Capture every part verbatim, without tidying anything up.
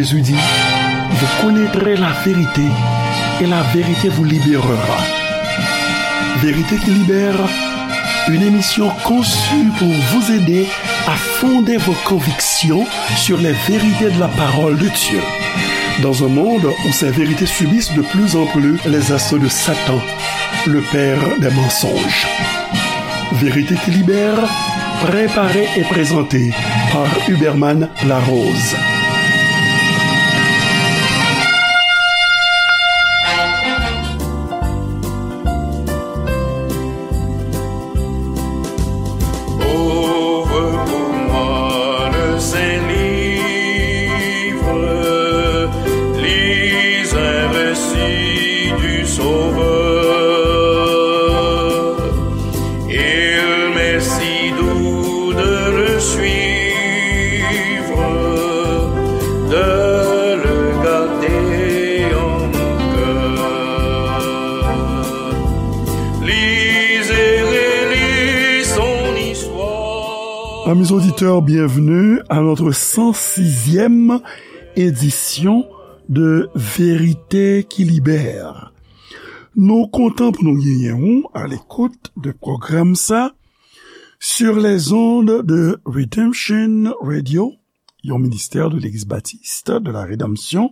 Jésus dit, vous connaîtrez la vérité et la vérité vous libérera. Vérité qui libère, une émission conçue pour vous aider à fonder vos convictions sur les vérités de la parole de Dieu. Dans un monde où ces vérités subissent de plus en plus les assauts de Satan, le père des mensonges. Vérité qui libère, préparée et présentée par Huberman Larose. Ouvre pour moi le Saint-Livre, lis un récit du Sauveur. Il m'est si doux de le suivre, de le garder en mon cœur. Lis et relis son histoire. Amis auditeurs, bienvenue à notre cent sixième édition de Vérité qui libère. Nou kontan pou nou genyen w a l'écoute de pwogram sa sur les ondes de Redemption Radio, yon ministè de Legliz Batis de la Redanmsyon,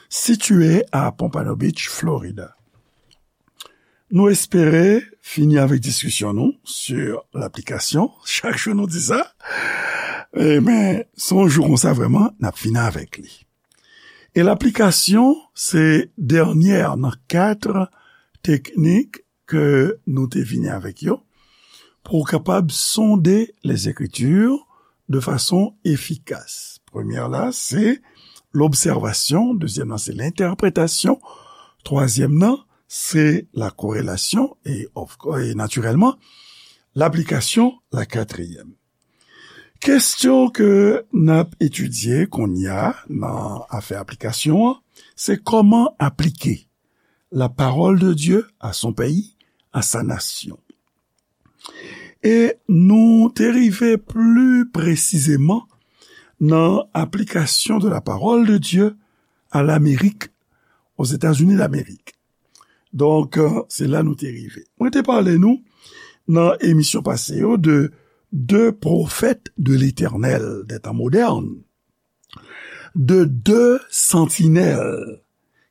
sitiye a Pompano Beach, Florida. Nou espere fini avèk diskisyon nou sur laplikasyon. Chak jou nou di sa. E men, se yon jou konsa vrèman, n ap fini avèk li. E laplikasyon, se dènyè nan kat teknik ke nou te vini avèk yo pou w kapab sonde les Écritures de façon efficace. Premyè la, se l'observation. Dezyèm nan, se l'interprétation. Twazyèm nan, se la corrélation. E, of course, e natirèlman, laplikasyon, la katriyèm. Kesyon ke n ap etidye kounye a nan afè aplikasyon an, se kòman aplike la parole de Dieu à son pays, à sa nation. E nou te rive pli presizeman nan aplikasyon de la parole de Dieu à l'Amérique, aux États-Unis d'Amérique. Donk, euh, se la nou te rive. Mwen te pale nou nan emisyon pase yo de de pwofèt de Letènèl dè tan modèn, de de santinèl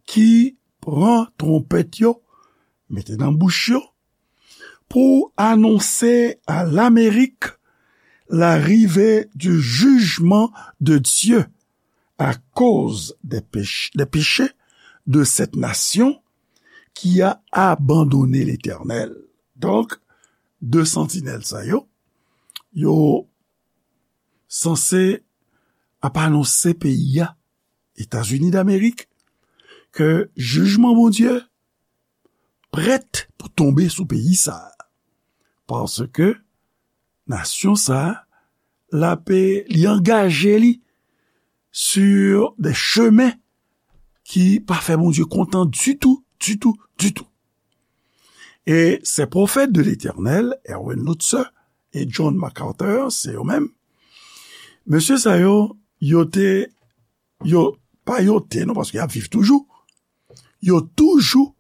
ki pran twonpèt yo, mete nan bouch yo, pou anonse à l'Amérique l'arrivée du jugement de Dieu à cause des péch-, des péchés de cette nation qui a abandonné l'Éternel. Donk, de santinèl sa yo, yo sanse ap anonse peyi a, Etazini Damerik, ke jijman Bondye prèt pou tonbe sou peyi sa a. Paske nasyon sa a, l ape, li angaje li sur des chemins ki pa fè Bondye kontan ditou, ditou, ditou. E ces prophètes de l'Éternel, Erwin Lutzer e John MacArthur, se yo menm. Mesye sa yo, yo te, yo, pa yo te, non, paske y ap viv toujou. Yo toujou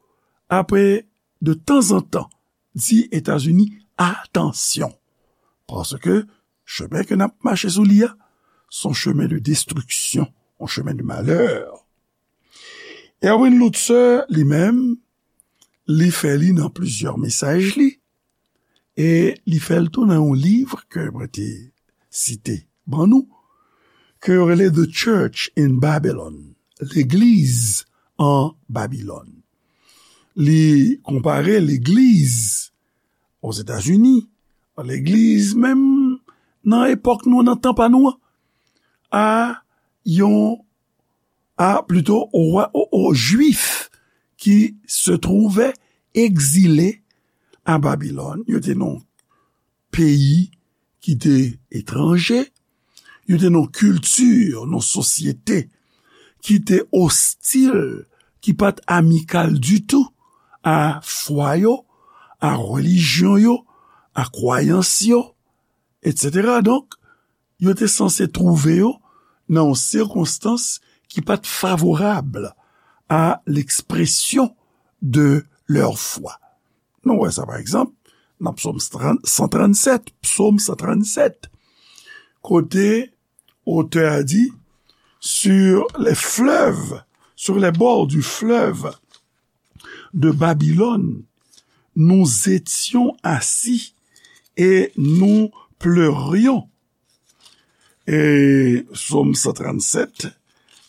ape de tanzantan di Etazini, atansyon. Paske chemen ke n ap mache sou li a, se yon chemen de destriksyon, yon chemen de malè. Erwin Lutzer, li menm, li fè li nan plizyè mesaj li, e li fè l tou nan yon liv ke mwen te site ban nou, ke yo rele The Church in Babylon, Legliz an Babilòn. Li konpare legliz Ozetazini, legliz menm nan epòk nou, nan tan pa nou an, a yon, a plito o, o, o Jwif ki se twouve egzile a Babilòn. Yo te nan peyi ki te etranje, yo te nan kilti, nan sosyete ki te ostil, ki pa t amikal ditou a fwa yo, a relijyon yo, a kwayans yo, etsetera. Donk, yo te sanse twouve yo nan yon sikonstans qui pas favorable à l'expression de leur foi. Nou wè sa, pa egzanp, nan Psaume trente, cent trente-sept, Psaume cent trente-sept, kote otè a di, sur les fleuves, sur les bords du fleuve de Babylone, nous étions assis et nous pleurions. E Psaume cent trente-sept,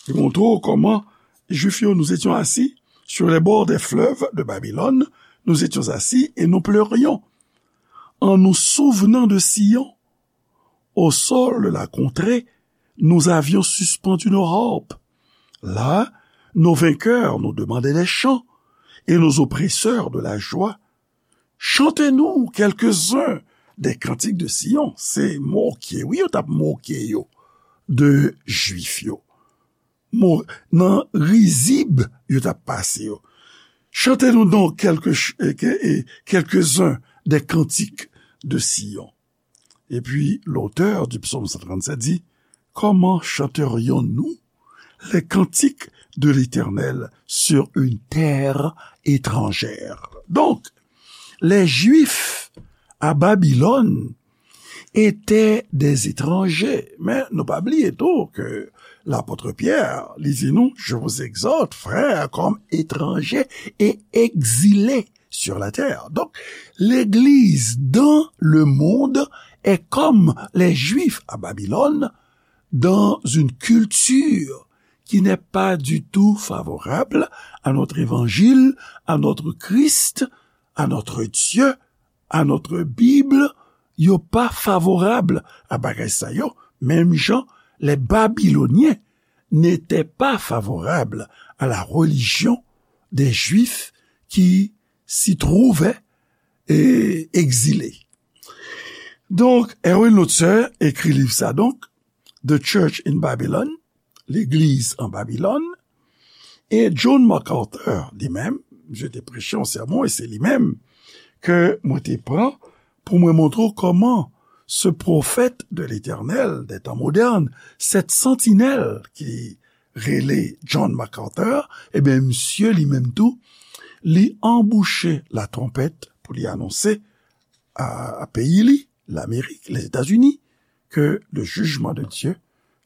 li montre w kòman Jwif yo, nous étions assis sur les bords des fleuves de Babylone, nous étions assis et nous pleurions. En nous souvenant de Sion, au sol de la contrée, nous avions suspendu nos harpes. Là, nos vainqueurs nous demandaient des chants et nos oppresseurs de la joie. Chantez-nous quelques-uns des cantiques de Sion. Se moke, wi, yo t ap moke yo de Jwif yo. Mo, nan rizib yo t ap pase yo. Chantez-nous donc quelques ch-, eh, que-, eh, quelques-uns des cantiques de Sion. Et puis, l'auteur du psaume cent trente-sept dit, comment chanterions-nous les cantiques de l'Éternel sur une terre étrangère? Donc, les Juifs à Babylone étaient des étrangers. Men nou pa bliye tou ke lapot Pyè, li di nou, je vous exhorte, frères, comme étrangers et exilés sur la terre. Donc, l'Église dans le monde est comme les Juifs à Babylone, dans une culture qui n'est pas du tout favorable à notre évangile, à notre Christ, à notre Dieu, à notre Bible. Yo pa favorab a bagay sa yo, menm jan les Babyloniens n'étaient pas favorables à la religion des Juifs qui s'y trouvaient, eh, exilés. Donk, Erwin Lutzer ekri liv sa, donk, The Church in Babylon, Legliz an Babilòn, e John MacArthur, li menm, misye te preche yon sèmon, e se li menm ke mwen te pran pou mwen montre w kòman ce prophète de l'Éternel des temps modernes, cette sentinelle ki rele John MacArthur, ebyen, misye li menm tou, li anbouche latwonpèt pou li anonse a, a peyi li, Lamerik, Lèzetazini, ke le jugement de Dieu,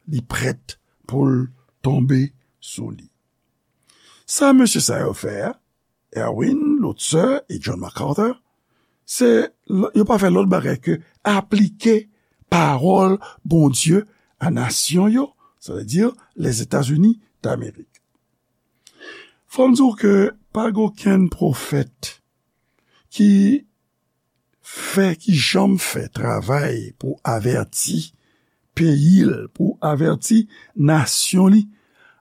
li prèt pou l tonbe sou li. Sa mesye sa yo fè a, Erwin, Lutzer e John MacArthur, se, yo pa fè lòt bagay ke aplike pawòl Bondye a nasyon yo, sa vle di Lèzetazini Damerik. Fò m di w ke pa gen okenn pwofèt ki fè, ki janm fè travay pou avèti peyi l, pou avèti nasyon li,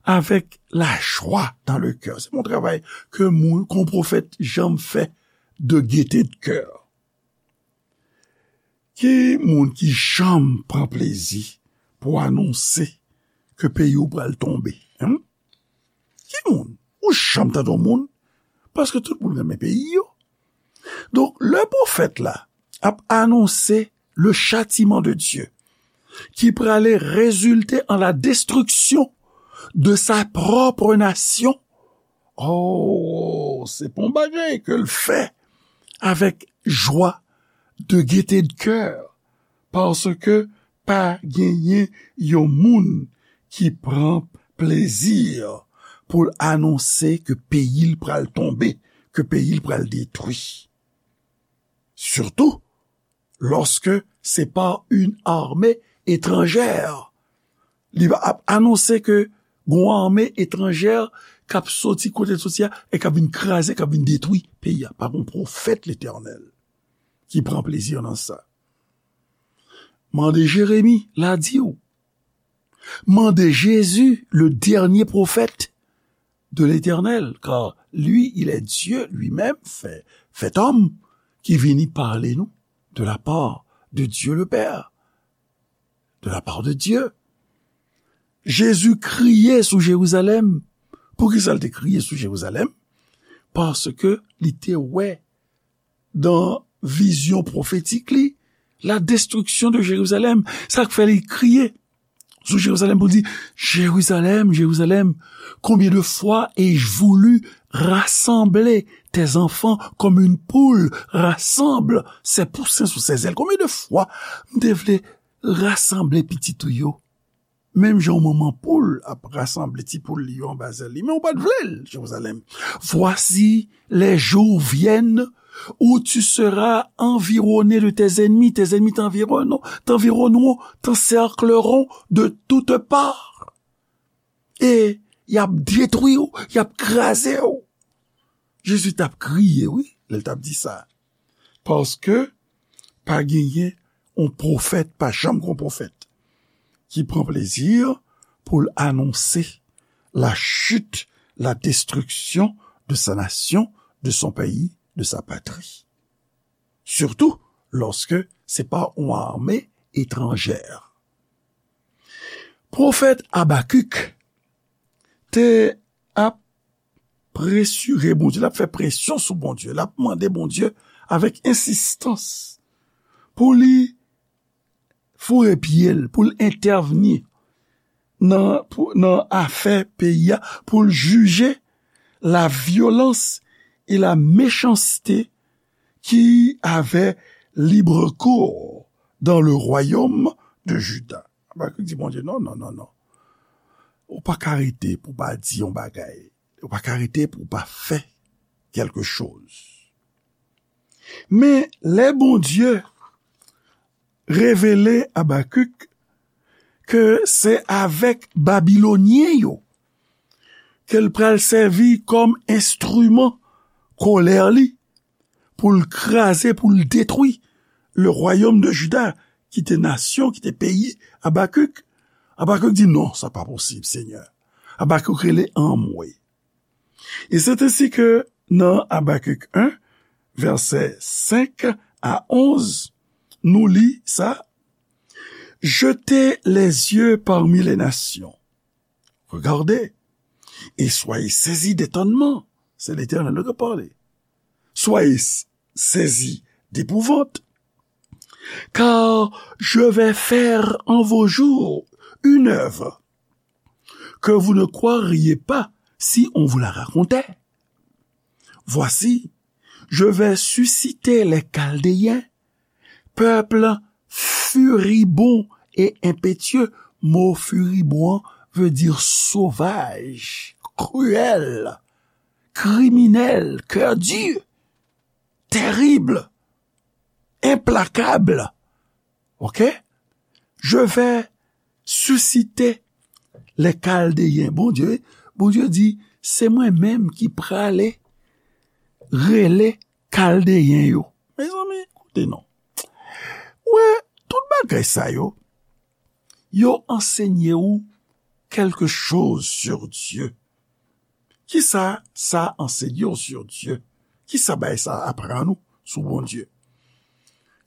avèk lajwa dans le cœur. Se yon travay ke moun, ke yon pwofèt janm fè de gaieté de cœur. Ki moun ki janm pran plezi pou anonse ke peyi w pral tonbe? Hen? Ki moun? Ou janm tande yon moun? Paske tout moun renmen peyi yo. Donk, lè pwofèt la ap anonse le châtiment de Dieu, ki prale rezilte an la destruction de sa propre nation, oh, se pa yon bagay ke l fè avèk jwa, de gaieté de cœur, paske pa genyen yon moun ki pran plezi pou l anonse ke peyi l pral tonbe, ke peyi l pral detwi. Sitou lòske se pa yon ame etranjè. Li ap anonse ke gon ame etranjè k ap soti kote l soti a e k ap vin kraze, k ap vin detwi peyi a. Pa gon pwofèt Letènèl ki pran plezi nan sa. Mande Jeremi, l a di w. Mande Jésus, le dernier prophète de l'Éternel, car lui, il est Dieu lui-même, fait, fait homme, ki vini pale nou de la part de Dieu le Père, de la part de Dieu. Jezi kriye sou Jerizalèm. Poukisa l te kriye sou Jerizalèm? Paske li te wè dan vizyon pwofetik li, la destruction de Jérusalem. Sa k fè li kriye. sou Jérusalem pou l di, Jérusalem, Jérusalem, combien de fois ai-je voulu rassembler tes enfants comme une poule rassemble ses poussins sous ses ailes? Konbyen de fwa m te vle rasanble pitit ou yo, menm jan yon manman poul ap rasanble ti poul li yo anba zèl li, men ou pa t vle l, Jérusalem. Voici, les jours viennent où tu seras environné de tes ennemis. Tes ennemis t'environneront, t'environneront, t'encercleront de toutes parts. E y ap detwi w, y ap kraze w. Jezi t ap kriye, wi, lè l t ap di sa. Paske pa genyen yon pwofèt, pa janm gen yon pwofèt ki pran plezi pou l anonse la chute, la destruction de sa nation, de son pays, de sa patrie. Surtout lorsque c'est par une armée étrangère. Pwofèt Abakik te ap presire Bondye, l ap fè presyon sou Bondye, l ap mande Bondye avèk ensistans pou li foure pye l, pou l entèvni nan, pou, nan afè peyi a, pou l jije la violence et la méchanceté qui avaient libre cours dans le royaume de Juda. Abakik di Bondye, non, non, non, non. Ou pa ka rete pou pa di yon bagay. Ou pa ka rete pou pa fè kèlke choz. Men lè Bondye revele Abakik ke se avèk Babilonyen yo ke l pral sèvi kòm enstriman kolè li pou l kraze, pou l detwi le royaume de Juda, ki te nasyon, ki te peyi Abakik. Abakik di, non, sa pa posib, Senyè. Abakik rele anmwe. Et c'est ainsi que dans Habacuc un, versets cinq à onze, nou li sa, Jetez les yeux parmi les nations. Regardez, et soyez saisis d'étonnement. C'est l'Éternel qui parle. Soyez saisis d'épouvante, car je vais faire en vos jours une œuvre que vous ne croiriez pas si on vous la racontait. Voici, je vais susciter les Chaldéens, peuple furibond et impétueux. Mot furibond veut dire sauvage, cruel, criminel, cœur dur, terrible, implacable. Ok? Je vais susciter les Chaldéens. Bondye, Bondye di, se mwen menm ki prale rele Kaldeyen yo. Mezanmi, koute non. Wè, tout bagay sa yo, yo ansenye ou quelque chose sur Dieu. Kisa sa ansenye w sur Dieu? Kisa bagay sa aprann ou sou Bondye?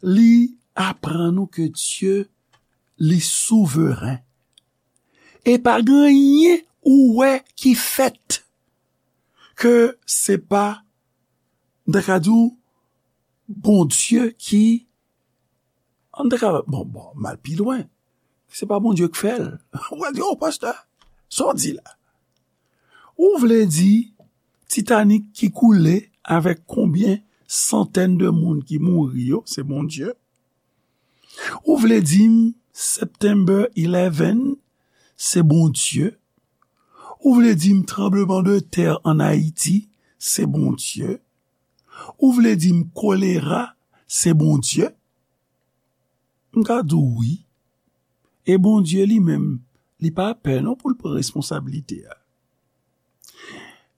Li aprann ou ke Dye, li souveren. E pa gen anyen ou wè ki fèt ke se pa, m ta ka di w, Bondye ki, an ta ka, bon, bon, m al pi lwen. Se pa Bondye k fè l. Ou pral di, oh, pastè, sa w di la? Ou vle di Titanic ki koule avèk konbyen santèn de moun ki mouri yo, se Bondye? Ou vle di m September eleven, se Bondye? Ou vle di m tranbleman de tè an Ayiti, se Bondye? Ou vle di m kolera, se Bondye? M ka di w wi. E Bondye li menm, li pa pè non pou l pran responsablite a.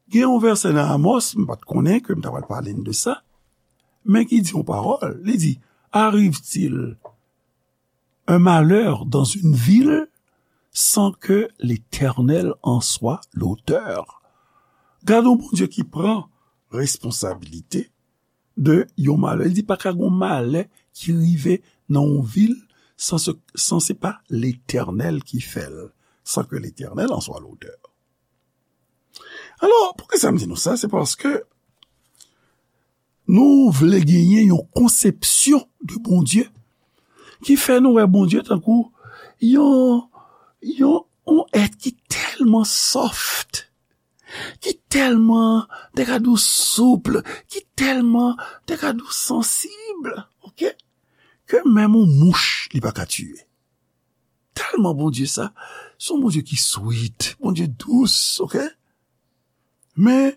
Gen yon vèsè nan Amos, m pa t konnen ke m ta pral pale n de sa, men ki di yon pawòl. Li di, arrive-t-il un malheur dans une ville sans que l'Éternel en soit l'auteur? Gade yon Bondye ki pran responsablite de yon malè. Li di pa ka gen yon malè ki rive nan yon vil san se, san se pa Letènèl ki fè l, sans que l'Éternel en soit l'auteur. Alò, poukisa m di nou sa? Se paske nou vle genyen yon konsepsyon de Bondye ki fè nou wè Bondye tankou yon, Yon, yon èt ki tèlman soft, ki tèlman, te ka di w souple, ki tèlman, te ka di w sansib, oke? Ke menm yon mouch, li pa ka tiye. Tèlman Bondye sa, se yon Bondye ki sweet, Bondye dous, oke? Men,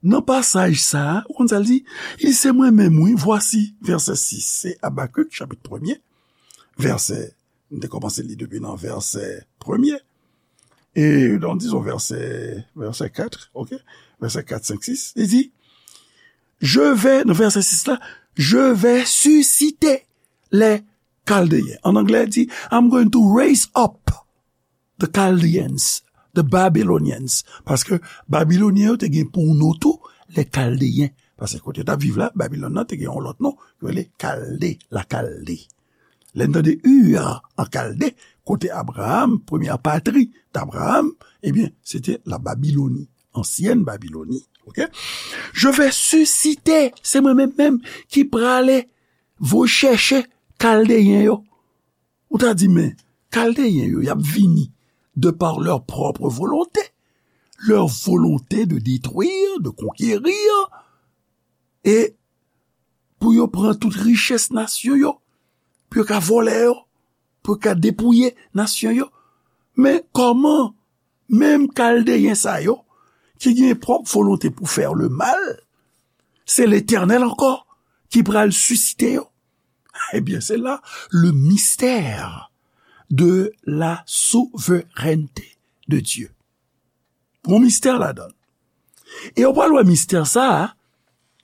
nan pasaj sa a, ou konn sa l di? Li se mwen menm, wi, vwasi, vèsè sis, se Abakik, chapit premye, vèsè, m te kòmanse li depi nan vèsè premye, e, donk, dizon, vèsè, vèsè kat, oke? Vèsè kat, senk, sis, li di, je vais, nan vèsè sis la, je vais susciter les Chaldéens. An anglè, li di, I'm going to raise up the Chaldeans, the Babylonians. Paske Babilonyen yo te gen pou non tou, les Chaldéens. Paske kote yo t ap viv la, Babilòn nan te gen yon lòt non, yo rele Kalde, la Kalde. Lè n tande Ur an Kalde, kote Abraham, premyè patri d Abraham, ebyen, se te la Babiloni, ansyèn Babiloni. Oke? Je vais susciter, se mwen menm menm ki prale voye chèche Kaldeyen yo. Ou ta di, men, Kaldeyen yo, y ap vini de par leur propre volonté, leur volonté de détruire, de conquérir, e pou yo pran tout richès nasyon yo, pou yo ka vòlè yo, pou yo ka depouye nasyon yo. Men kòman menm Kaldeyen sa yo, ki gen pwòp volonte pou fè le mal, se Letènèl ankò ki pral sisite yo? Ebyen, se la le mystère de la souveraineté de Dieu. Gon mistè ladan l. E w pral wè mistè sa a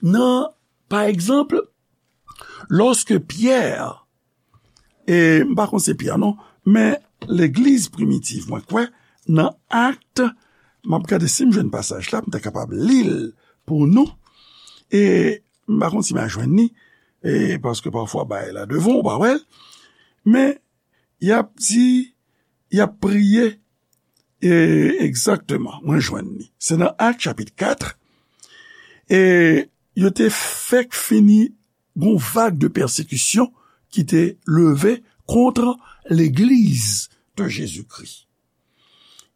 nan, pa egzanp, lòske Pyè, e m pa konn se Pyè non, men legliz primitiv, mwen kwè, nan Akt, m ap gade si m jwenn pasaj la, m ta kapab li l pou nou, e m pa konn si m a jwenn li, e paske pafwa bagay la devan w pa wè l, men y ap di, y ap priye, e egzakteman, mwen jwenn li. Se nan Akt chapit kat, e yo te fèk fini gon vag de pèsekisyon ki te leve kont legliz de Jezikri.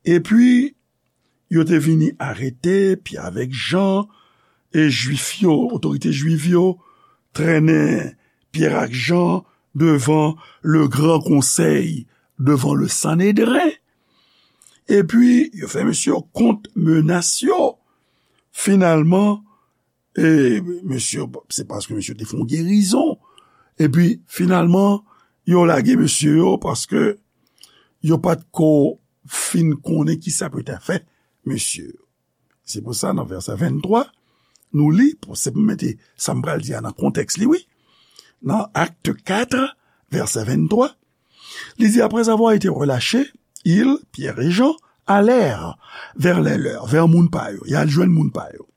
Epi, yo te vini arete Pyè avèk Jan, e Jwif yo, otorite Jwif yo, trennen Pyè ak Jan devan le gran konsèy, devan le Sanedren. Epi, yo fè mesye yo kont menas yo. Finalman, e mesye, se paske mesye te fè yon gerizon. Epi, finalman, yo lage mesye yo paske yo pa t ko fin konnen ki sa pou yo ta fè mesye yo. Se pou sa, nan vèsè venntwa, nou li, pou, se pou mete sa m pral di a nan kontèks li, wi. Nan Akt kat, vèsè venntwa, li di, après avoir été relâchés, ils, Pierre et Jean, allèrent vers les leurs, vè moun pa yo, y al jwenn moun pa yo,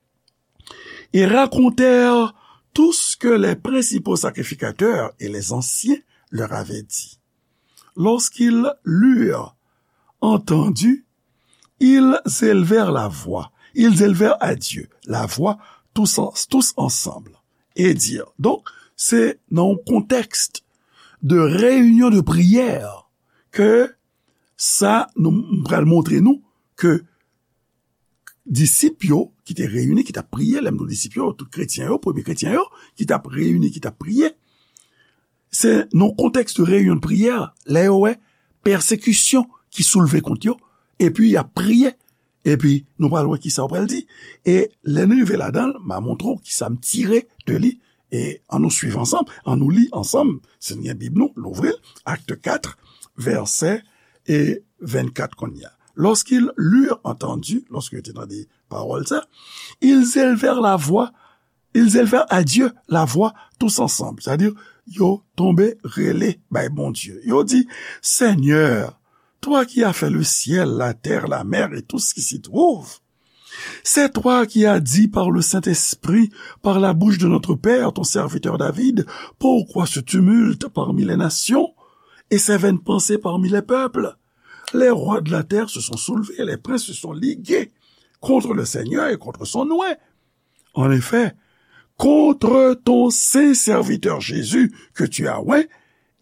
et racontèrent tout ce que les principaux sacrificateurs et les anciens leur avaient dit. Lorsqu'ils l'eurent entendu, ils élevèrent la voix, ils élevèrent à Dieu la voix tous, en- tous ensemble, et dirent. Donk, se nan yon kontèks de reyinyon de priyè ke sa, nou, m pral montre nou ke disip yo ki te reyini, ki t ap priye, lè m di w disip yo, tout kretyen yo, premye kretyen yo, ki t ap reyini, ki t ap priye, se nan kontèks de reyinyon de priyè, lè yo wè pèsekisyon ki soulve kont yo, epi y ap priye, epi nou pral wè kisa yo pral di. E lè n rive ladan l, m a montre w kisa m tire de li, e ann nou swiv ansanm, ann nou li ansanm, si n gen Bib nou, louvri l, Akt kat, vèsè e vennkat kounye a. Lorsqu'ils l'eurent entendu, lòske yo te tande pawòl sa, ils élevèrent la voix, ils élevèrent à Dieu la voix tous ensemble. Sa di, yo tonbe rele bay Bondye. Yo di, Seigneur, toi qui as fait le ciel, la terre, la mer et tout ce qui s'y trouve, c'est toi qui as dit par le Saint-Esprit, par la bouche de notre père, ton serviteur David, pourquoi ce tumulte parmi les nations et ces vaines pensées parmi les peuples? Les rois de la terre se sont soulevés, les princes se sont ligués contre le Seigneur et contre son oint. En effet, contre ton saint serviteur Jésus que tu as oint,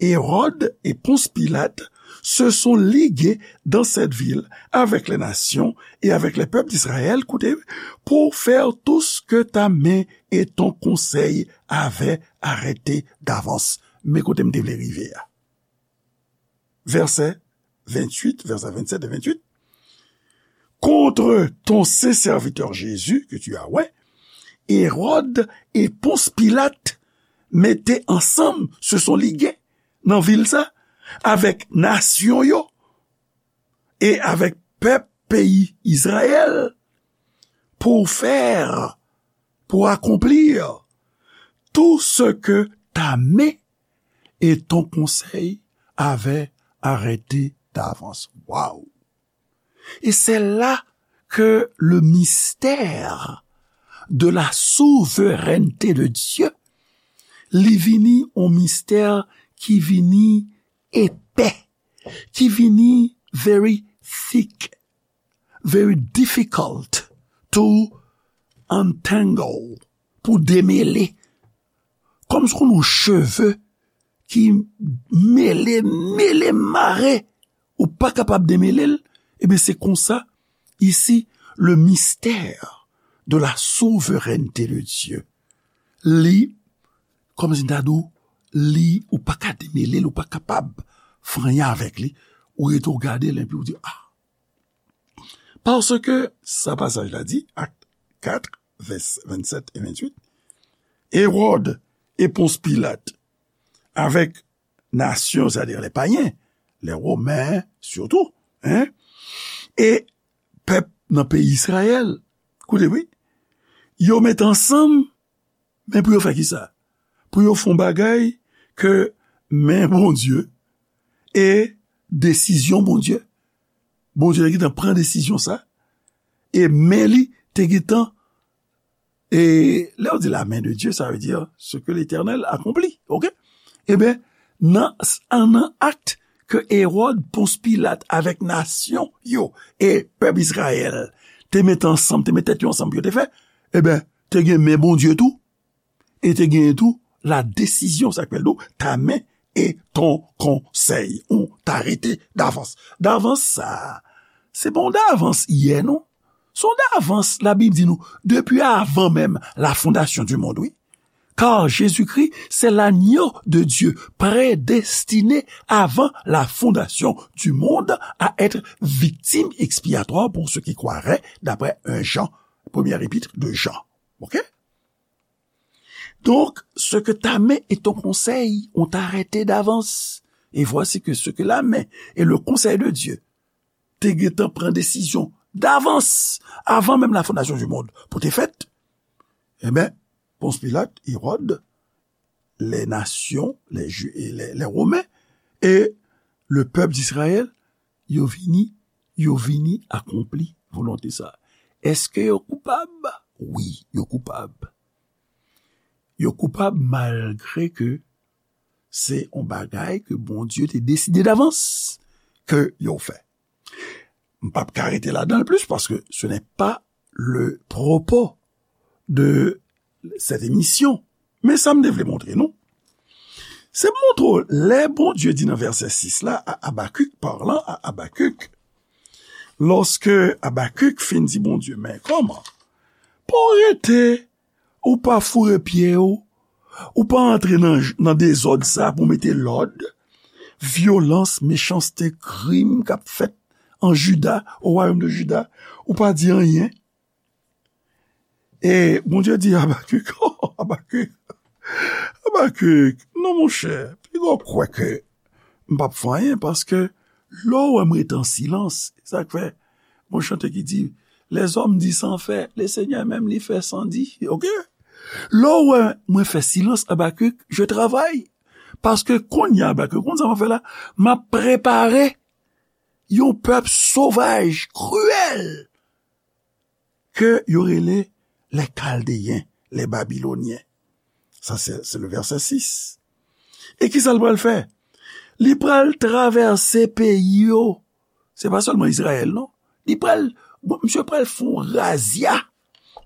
Hérode et Ponce Pilate se sont ligués dans cette ville avec les nations et avec les peuples d'Israël, écoutez, pour faire tout ce que ta main et ton conseil avaient arrêté d'avance. Men kote m te vle rive a. Vèsè venntuit, vèsè vennsèt e venntuit. Contre ton saint serviteur Jésus, que tu as, ouais, Hérode et Ponce Pilate mete ansanm, se sont ligués nan vil sa, avèk nasyon yo e avèk pèp peyi Izrayèl, pour faire, pour accomplir tout ce que ta main et ton conseil avaient arrêté d'avance. Waouh! Et c'est là que le mystère de la souveraineté de Dieu, li vini yon mistè ki vini epè, ki vini very thick, very difficult to untangle, pou demele. Kòm si w konn yon cheve ki mele, mele, mare, ou pa kapab demele l, ebyen, se konsa, isi, le mystère de la souveraineté de Dieu. Li, kòm si m ta di w, li, ou pa ka demele l, ou pa kapab fè anyen avèk li. Ou rete, ou gade l, epi ou di, ah, Paske sa pasaj la di, Acte quatre, vès vennsèt e venntuit, Hérode e Pons Pilat, avèk nasyon, sètadi lè payen, lè Women sitou, en, e pèp nan peyi Izrayèl, koute wi, yo met ansanm, men pou yo fè kisa? Pou yo fè yon bagay ke men Bondye e desizyon Bondye. Bondye te gentan pran desizyon sa, e men li te gentan, e lè yo di la main de Dieu, sa vle di ce que l'Éternel accomplit, oke? Ebyen, nan, nan akt ke Ewòd, Pons Pilat avèk nasyon yo e pèp Izrayèl te met ansanm, te met tèt yo ansanm pou yo te fè, ebyen, te gen men Bondye tou, e te genyen tou la desizyon, sa k fè l do, ta men e ton konsèy, ou ta rete davans. Davans sa a, se pa yon davans yè, non. Se yon davans, Labib di nou, depi avan menm la fondation du monde, wi. Car Jésus-Christ, c'est l'agneau de Dieu, prédestiné avant la fondation du monde à être victime expiatoire pour ceux qui croiraient, d'après un Jean, première épître de Jean. Ok? Donc, ce que ta main et ton conseil ont arrêté d'avance, et voici que ce que la main et le conseil de Dieu te gentan pran desizyon davans, avan menm la fondasyon di mond, pou te fèt, ebyen, Pons Pilat, Ewòd, les nations, les Ju-, et les, les Romains, et le peuple d'Israël, yo vini, yo vini akonpli volonte sa. Èske yo koupab? Wi, yo koupab. Yo koupab malgre ke se yon bagay ke Bondye te deside davans ke yo fè. M p ap ka rete ladan l plis, paske ce n'est pas le propos de cette émission. Men sa m te vle montre nou, se montre w, lè Bondye di nan vèsè sis la, a Abakik, parlant à Habacuc, lòske Abakik fin di Bondye, men kòman? Pa w rete, ou pa foure pye w, ou pa antre nan, nan dezòd sa pou mete lòd, vyolans, mechanste, krim k ap fèt an Jida, o wayòm de Jida, ou pa di anyen. E Bondye di Abakik, oh, Abakik, Abakik, non, monchè, piga w kwè ke m p ap fè anyen, paske lè w wè m rete an silans, sa k fè, gon chante ki di, les hommes disent sans faire, le Seigneur menm li fè san di, oke? Lè w wè mwen fè silans, Abakik, je travaille. Paske kounye a, Abakik, konn sa m ap fè la? M ap prepare yon pèp sovaj, kriyèl, ke yo rele les Chaldéens, les Babyloniens. Sa, se, se le vèsè sis. E kisa l pral fè? Li pral travèse peyi yo. Se pa sèlman Izrayèl, non. Li pral, bon, misye pral fè yon razya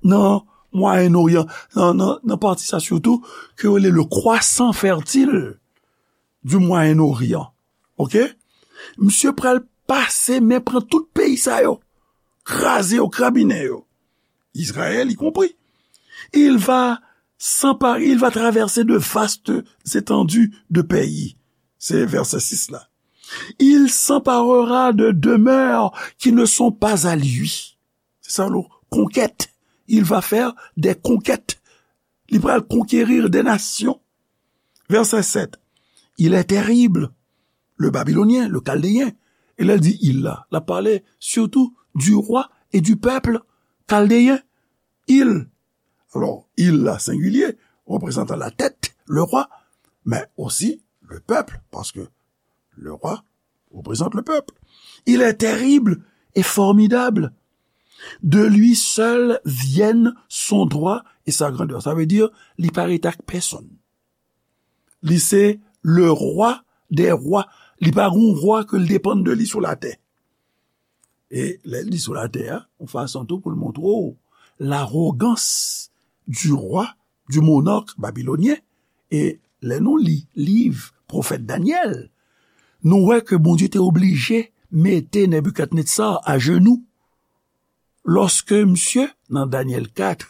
nan Mwayen Oryan, nan, nan, nan pati sa sitou, ke yo rele le croissant fertile du Moyen-Orient. Oke? Misye pral pase men pran tout peyi sa yo, kraze yo, krabinen yo. Israël y compris. Il va s'emparer, il va traverser de vastes étendues de pays. Se vèsè sis la. Il s'emparera de demeures qui ne sont pas à lui. Se sa lo konkèt. Il va faire des conquêtes. Li pral conquérir des nations. Vèsè sèt. Il est terrible, le Babylonien, le Chaldéen. E lè l di il la, l ap pale surtout du roi et du peuple chaldéen. Il. Alò, il la, sengilye, reprezantan la tèt, le rwa, men osi le pèp, paske le rwa reprezante le peuple. Il est terrible et formidable. De lui seul viennent son droit et sa grandeur. Sa vle di, li pa rete ak pèsonn. Li se le rwa dè rwa. Li pa gon rwa ke l depann de li sou latè. E lè l di sou latè a, yon fason tou pou l montre w larogans du rwa, du monarque babylonyen. E lè nou li liv pwofèt Danyèl, nou wè ke Bondye te oblije mete Nebikadnetsar ajenou. Lòske misye, nan Danyèl kat,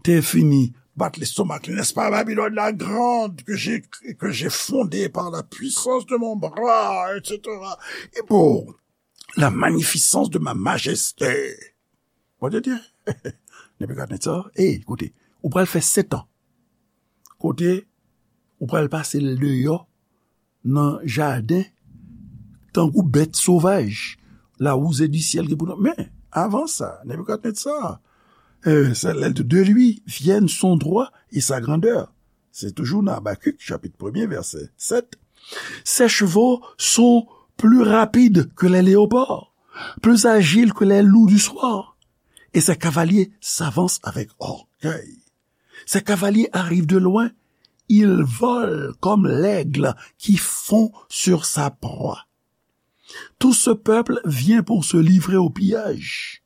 te fini bat lestomak li, n'est-ce pas, Babylone la grande, que j'ai, que j'ai fondée par la puissance de mon bras, et cetera. Et pour la magnificence de ma majesté. Bondye di, Nebikadnetsar, ey, koute, ou pral fè sèt an. Kote, ou pral pase l deyò nan jaden, tankou bèt sovaj, la rouzè di syèl gen pou nou. Men, avan sa, Nebikadnetsar, euh, c'est l'aide de lui viennent son droit et sa grandeur. Se toujou nan Abakik, chapit premye, vèsè sèt. Ses chevaux sont plus rapides que les léopards, plus agiles que les loups du soir, et ses cavaliers s'avancent avec orgueil. Ses cavaliers arrivent de loin, ils volent comme l'aigle qui fond sur sa proie. Tout ce peuple vient pour se livrer au pillage.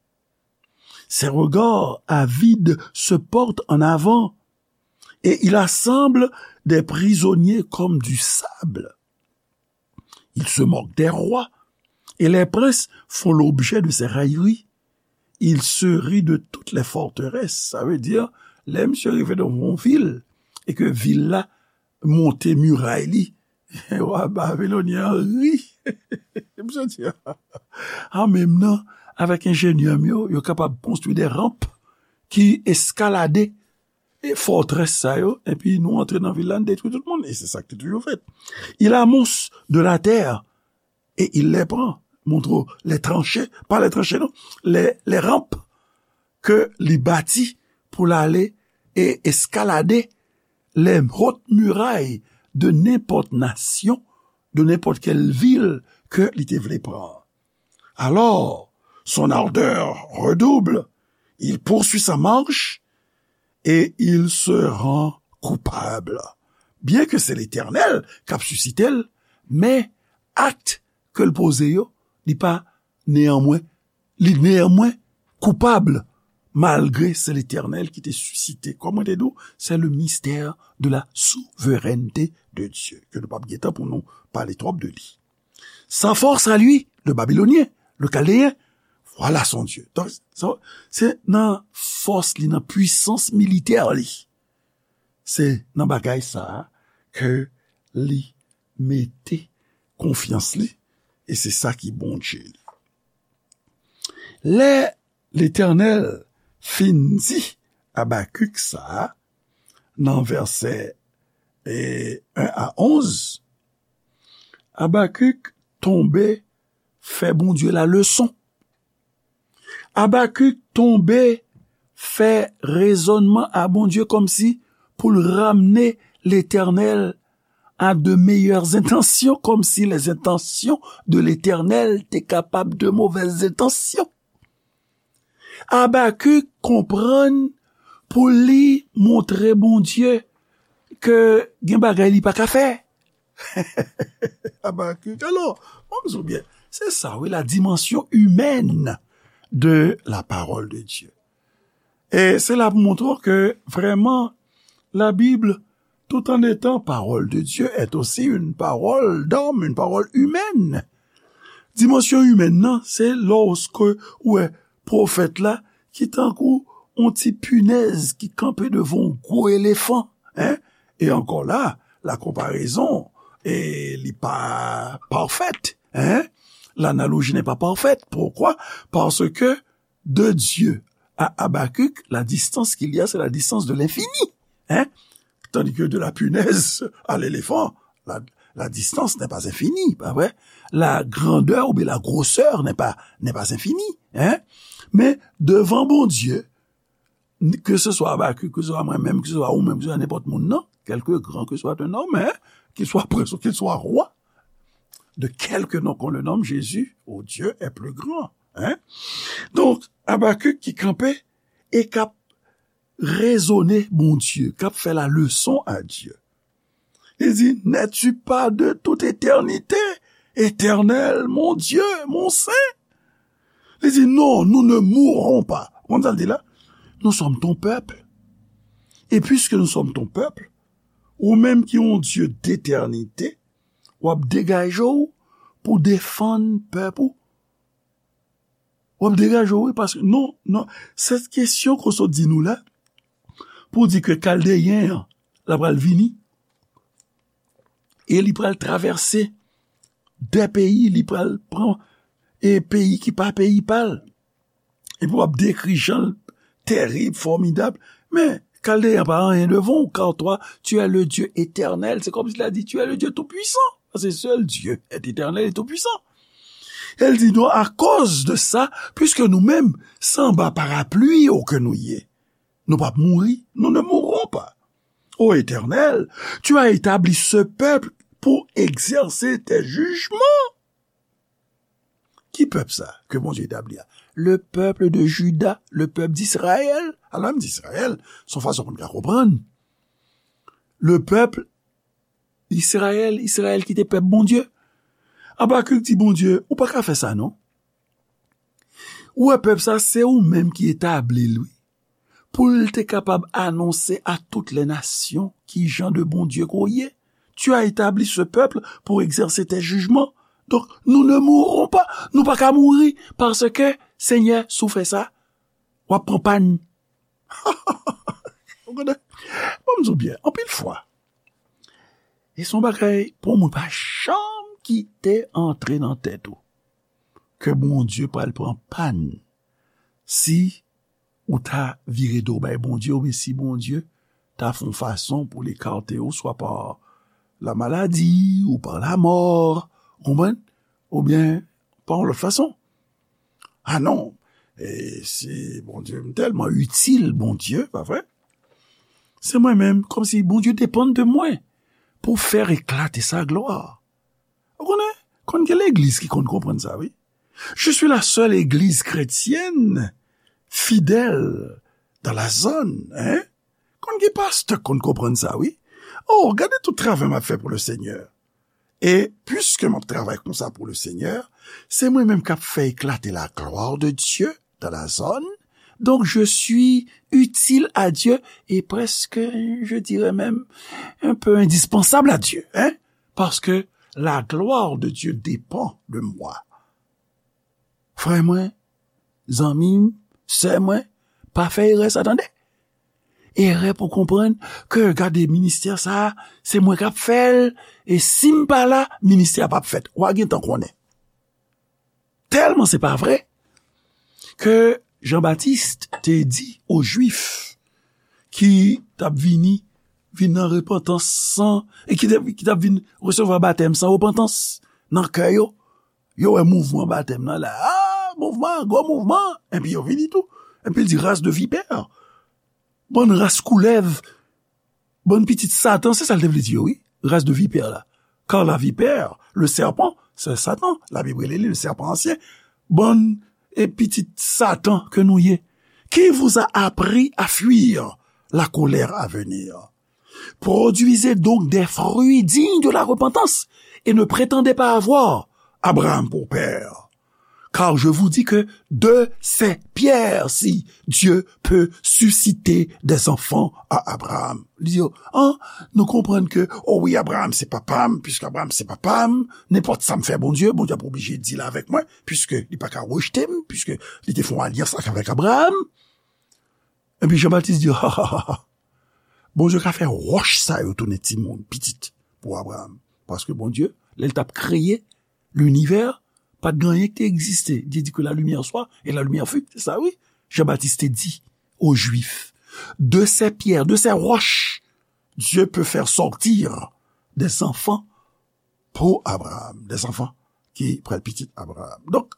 Ses regards avides se portent en avant, et il assemble des prisonniers comme du sable. Il se moque des rois, et les princes font l'objet de ses railleries. Il se rit de toutes les forteresses. Sa vle di, lè misye rive nan yon vil, e ke vil la monte miray li, wa babilonyen an ri. Misye di, a menm nan, avèk enjenyè m yo, yo kapab konstwi de ranp ki eskalade e fòtrès sa yo, epi nou antre nan vil la, nou detwi tout moun. E se sa k te toujou fèt. Il amonce de la terre, et il les prend. Montre w, les tranchées, pas les tranchées, non, les, les rampes ke li bati pou l ale e eskalade les hautes murailles de nenpòt nasyon, de nenpòt kèl vil ke li te vle pran. Alors, son ardeur redouble, il poursuit sa marche et il se rend coupable. Byen ke se Letènèl k ap sisite l, men akt ke l poze yo, li pa neyanmwen, li neyanmwen koupab, malgre se Letènèl ki te sisite. Kòm mwen te di w, c'est le mystère de la souveraineté de Dieu, ke nou p ap gen tan pou nou pale twòp de li. Sa force à lui, le Babylonien, le Chaldéen, voilà son Dieu. Donk, sa, se nan fòs li, nan pwisans militè li. Se nan bagay sa a ke li mete konfyans li, e se sa ki Bondye li. Lè Letènèl fin di Abakik sa a, nan vèsè, e, en a onz, Abakik tonbe fè Bondye la leson. Abakik tonbe fè rezònman a Bondye kòmsi pou l ramne Letènèl a de meilleures intentions, comme si les intentions de l'Éternel te kapab de mauvaises intentions. Abakik konprann pou li montre Bondye ke gen bagay li pa ka fè. Abakik, alò, mwen m di w byen, se sa, wi, la dimension humaine de la parole de Dieu. E se la pou montre w ke vrèman, la Bible, tout en étant parole de Dieu, est aussi une parole d'homme, une parole humaine. Dimansyon imèn nan, se lòske ou wè pwofèt la ki tankou yon ti pinèz ki kanpe devan yon gwo elefan, en? E ankò la, la konparezon, e li pa pafèt, en? L'analogie n'est pas parfaite. Pourquoi? Parce que de Dieu à Habacuc, la distance qu'il y a, c'est la distance de l'infini. Hein? Tandis que de la punaise à l'éléphant, la, la distance n'est pas infinie, pas vrai? La grandeur ou bien la grosseur n'est pas, n'est pas infinie. Hein? Men devan Bondye, ke se swa Abakik, ke se swa mwen menm, ke se swa ou menm, ke se swa nenpòt moun nan, quelque grand que soit un homme, hein, qu'il soit prince ou qu'il soit roi, de quelque nom qu'on le nomme, Jésus, oh, Dieu est plus grand. Hein? Donk, Abakik ki kanpe e k ap rezone Bondye, k ap fè la leson a Dye. Li di, n'es-tu pas de toute éternité, Éternel, mon Dieu, mon Saint? Li di, non, nous ne mourrons pas. Konn sa l di la? Nous sommes ton peuple. Et puisque nous sommes ton peuple, ou menm ki yon Dye d'éternité, w ap degaje w pou defann pèp ou. W ap degaje w, wi, paske, non, non, se kesyon ke w sot di nou la, pou di ke Kaldeyen an, la pral vini, e li pral travèse de peyi, li pral pran, e peyi ki pa peyi pa l. Epi w ap dekri jan l tèrib, fòmidab. Men, Kaldeyen pa anyen devan w, car toi, tu es le Dieu éternel. C'est comme s'il a dit, tu es le Dieu tout-puissant. Parce que seul Dieu est éternel et tout-puissant. E l di, non, akoz de sa, puiske nou menm, se anba parapli ou ke nou ye, nou p ap mouri, nous ne mourrons pas. Ô Éternel, tu as établi ce peuple pour exercer tes jugements. Ki pèp sa ke Bondye etabli a? Le peuple de Juda, le peuple d'Israël. Alò, m di Israël, se yon fason pou n ka konprann. Le peuple Israël, Israël ki te pèp Bondye. Abakik di Bondye, ou pa ka fè sa non. Ou wè pèp sa, se ou menm ki etabli l, wi. Pou l te kapab anonse à toutes les nations ki jan de Bondye ke w ye. Tu as établi ce peuple pour exercer tes jugements. Donc, nous ne mourrons pas. Nou pa ka mouri, paske, Senyè, si w fè sa, w ap pran pàn. Ou konnen? Bon, m di w byen, anpil fwa, e se yon bagay pou moun pa janm kite antre nan tèt ou, ke Bondye pral pran pàn si ou ta vire do bay Bondye, oubyen si Bondye ta fè yon fason pou l ekate w, swa pa la maladi, ou pa lamò, ou konprann? Oubyen pa yon lòt fason. A non, e si Bondye, m tèlman itil Bondye, pa vre? Se mwen menm, kòmsi Bondye depann de mwen pou fè eklate sa glwa. Ou konnen, konn gen legliz ki konn konprann sa, wi. Je suis la seule église chrétienne fidèle dans la zone, hein? Konn gen pastè k konn konprann sa, wi. Oh, gade tout travay m ap fè pou le Seigneur. E puiske m ap travay konsa pou le Seigneur, se mwen menm k ap fè eklate la gloire de Dieu dans la zone. Donc, je suis utile à Dieu et presque, je dirais même, un peu indispensable à Dieu, hein? Parce que la gloire de Dieu dépend de moi. Frè mwen, zanmi m, sè mwen, pa fè erè sa, tande. Erè pou konprann ke, gade, ministè sa, se mwen k ap fè l, e si m pa la, ministè a p ap fèt. W a gentan konnen. Tèlman se pa vre ke Jan Batis te di o Jwif ki t ap vini, vin nan repantans san, e ki te, ki t ap vin resevwa batèm san repantans nan kè yo. Yo wè mouvman batèm nan la. Ah, mouvman, gwo mouvman. Epi yo vini tou. Epi l di, race de vipère. Bann ras koulèv. Bann pitit Satan, se sa l te vle di yo, wi. Race de vipère la. Car la vipère, le serpent, c'est Satan. Labib rele li le serpent ancien. Bann e pitit Satan ke nou ye. Qui vous a appris à fuir la colère à venir? Produisez donc des fruits dignes de la repentance et ne prétendez pas avoir Abraham pour père. Car je vous dis que de ces pierres-ci, Dieu peut susciter des enfants à Abraham. Li di yo, an, nou konprann ke, o wi, Abraham se papa m, piske Abraham se papa m, nenpòt sa m fè Bondye, Bondye ap oblije deal avèk mwen, piske li pa ka rejte m, piske li te fè yon alyans avèk Abraham. Epi Jan Batis di, ha, ha, ha, ha. Bondye ka fè wòch sa yo tounen timoun, pitit, pou Abraham. Paske Bondye, lè l t ap kreye linivè, pa t gen anyen ki te egziste. Li di que la lumière soit et la lumière fut. Se sa, wi. Jan Batis te di aux Juifs, de ces pierres, de ces roches, Dieu peut faire sortir des enfants pour Abraham, des enfants ki pral pitit Abraham. Donk,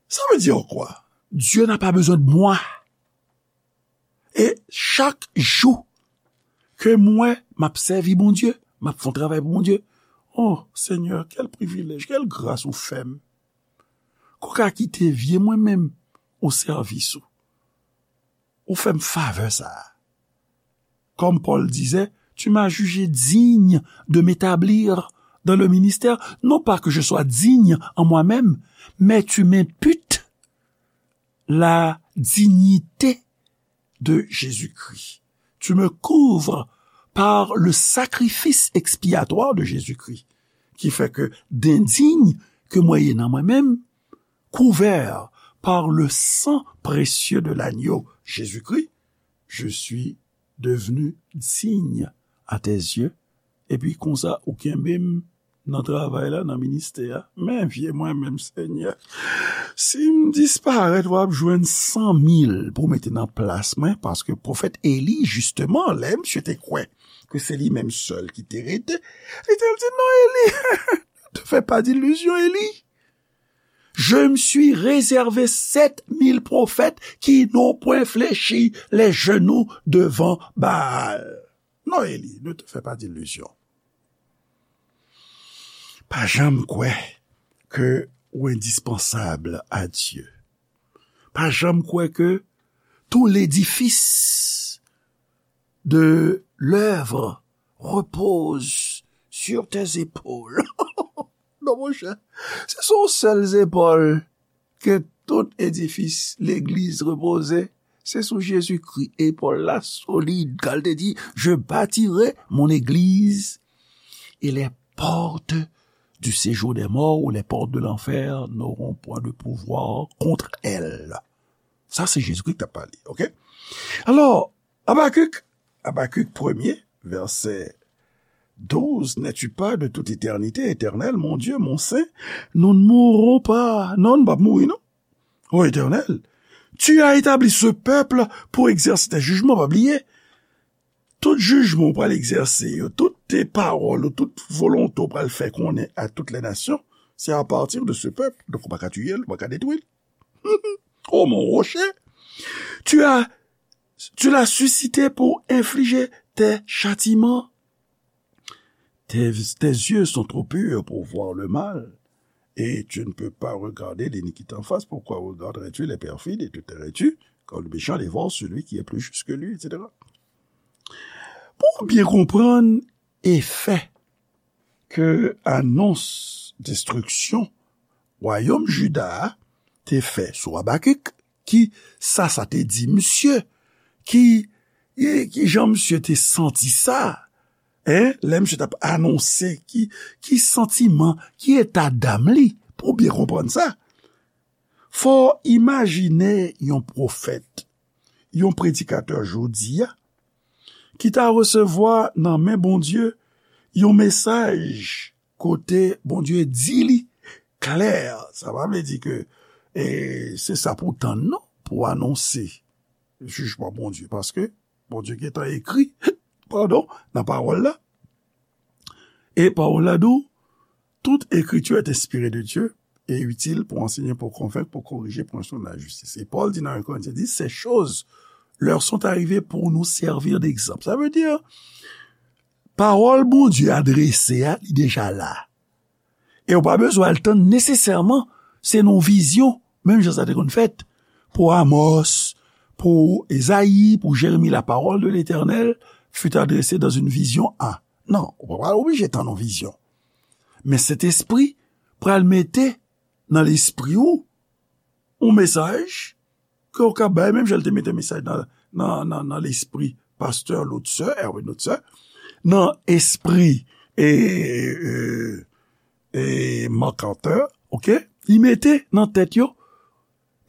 sa vle di kwa? Dieu n'a pas besoin de moi. E chak jou ke mwen, m ap sèvi Bondye, m ap fè yon travay pou Bondye, oh, Senyè, kèl privilèj, kèl gras ou fè m. Ou ka kite vye mwen menm o sèvis ou. Ou fè m favè sa a. Comme Paul disait, tu m'as jugé digne de m'établir dans le ministère, non pas que je sois digne en moi-même, mais tu m'imputes la dignité de Jésus-Christ. Tu me couvres par le sacrifice expiatoire de Jésus-Christ, ki fè ke dendiy ke mwen ye nan mwen menm, couvert par le sang précieux de l'agneau Jésus-Christ, je suis devenu digne à tes yeux. Epi konsa, ou kenbe m nan travay la, nan ministè a. Men vye mwen menm, Senyè. Si m disparèt, w ap jwenn san mil pou mete nan plas mwen, paske pwofèt Eli, jisteman, lè misye te kwè ke se li menm sèl ki te rete, li te di, non, Eli, ne te fais pas d'illusion, Eli. Je me suis réservé sept mille prophètes qui n'ont point fléchi les genoux devant Baal. Non, Eli, ne te fais pas d'illusion. Pa janm kwè ke ou endispansab a Dye. Pa janm kwè ke tout l'édifice de l'œuvre repose sur tes épaules. Non, monchè, se sou yon sèl zepòl ke tout edifis legliz repoze. Se sou Jezikri, epòl la solid. Kan l te di, je bâtirai mon église, et les portes du séjour des morts ou les portes de l'enfer n'auront point de pouvoir contre elle. Sa, se Jezikri k t ap pale, oke? Alò, Abakik, Abakik premye, vèsè douz, n'es-tu pas de toute éternité, Éternel, mon Dieu, mon Saint, nous ne mourrons pas. Non, nou p ap mouri, non. O Éternel, tu as établi ce peuple pour exercer tes jugements, pa bliye. Tout jijman ou pral egzèse yo, tout te pawòl ou, tout volonte ou pral fè konnen a tout lè nasyon, se a pati de ce peuple. Donk, ou pa ka tiye l, ou pa ka detwi l. Oh mon rocher, tu as, tu l'as suscité pour infliger tes châtiments. Tes, tes yeux sont trop purs pour voir le mal, et tu ne peux pas regarder l'iniquité en face. Pourquoi regarderais-tu les perfides et te tairais-tu, quand le méchant dévore celui qui est plus juste que lui, et cetera. Pou w byen konprann efè ke anons destriksyon wayòm Jida a te fè sou Abakik, ki sa sa te di misye, ki, e, ki jan misye te santi sa, en, lè misye t ap anonse, ki, ki santiman, ki eta dam li, pou w byen konprann sa. Fò w imajine yon pwofèt, yon predikatè jodi a, ki ta resevwa nan men Bondye yon mesaj kote Bondye di li klè. Sa pa vle di ke, e, se sa pou w tann, non, pou w anonse jijman Bondye, paske Bondye gentan ekri, padon, nan pawòl la. E pawòl la di w, toute écriture est inspirée de Dieu et utile pour enseigner, pour convaincre, pour corriger, pour instruire dans la justice. Et Paul dit dans un Corinthiens dix, ces choses leur sont arrivées pour nous servir d'exemple. Sa vle di, pawòl Bondye adrese a, li deja la. E w pa bezwen al tann nesesèman, se nan yon vizyon, menm jan sa te konn fèt pou Amòs, pou Ezayi, pou Jeremi, la parole de l'Éternel fut adressée dans une vision à. Non, ou pa pral oblije tann yon vizyon. Men Sentespri pral mete nan lespri w yon mesaj ke w ka bay, menm jan l te mete mesaj nan, nan, nan, nan lespri pastè Lotse, Erwin Lotse, nan espri e, e, e MacArthur, oke? Li mete nan tèt yo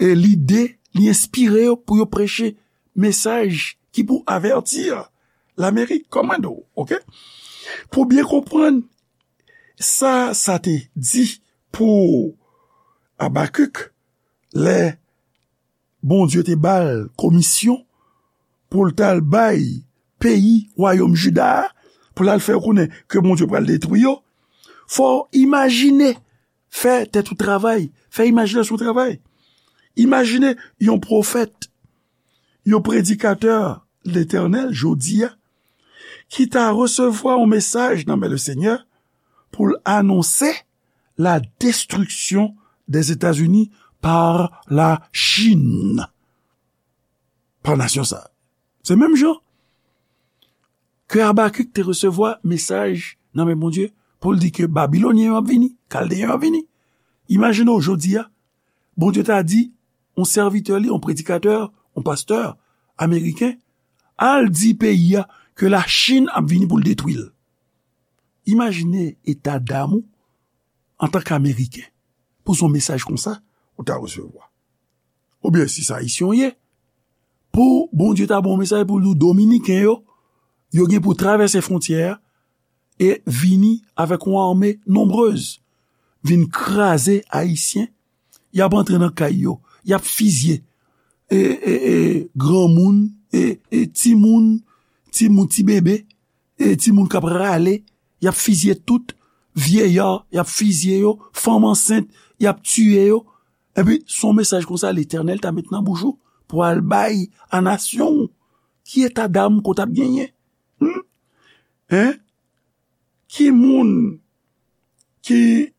e lide, li enspire yo pou yo preche mesaj ki pou avèti Lamerik, kòmando, oke? Pou byen konprann sa, sa te di pou Abakik, lè Bondye te ba l komisyon pou l t al bay peyi wayòm Jida a, pou l al fè yo konnen ke Bondye pral detwi yo, fò w imajine, fè tèt ou travay, fè imajinasyon w travay. Imajine yon pwofèt, yon predikatè Letènèl jodi a, ki ta resevwa yon mesaj nan men Lesenyè pou l anonse la destruction des États-Unis par la Chine. Pa nasyon sa. Se menm jan ke Abakik te resevwa mesaj nan men Bondye pou l di ke Babilonyen yo ap vini, Kaldeyen yo ap vini. Imajine w jodi a, Bondye ta di yon sèvitè li, yon predikatè, yon pastè ameriken, al di peyi a ke Lachin ap vini pou l detwi l. Imajine eta dam ou antanke Ameriken pou se yon mesaj konsa ou ta resevwa. Oubyen si se Ayisyen w ye, pou Bondye ta ba w mesaj pou l di w Dominiken yo, yo gen pou travèse fwontyè a e vini avèk yon ame nonbrez, vin kraze Ayisyen, y ap antre nan kay yo, y ap fizye e, e, e, granmoun, e, e, timoun, timoun, ti bebe, e, timoun k ap rale, y ap fizye tout, vyeyè, y ap fizye yo, fanm ansent, y ap tiye yo. Epi, se yon mesaj konsa Letènèl ta met nan bouch ou pou al bay a nasyon w. Ki eta dam ke w t ap genyen? Hmm? Hein? Ki moun ki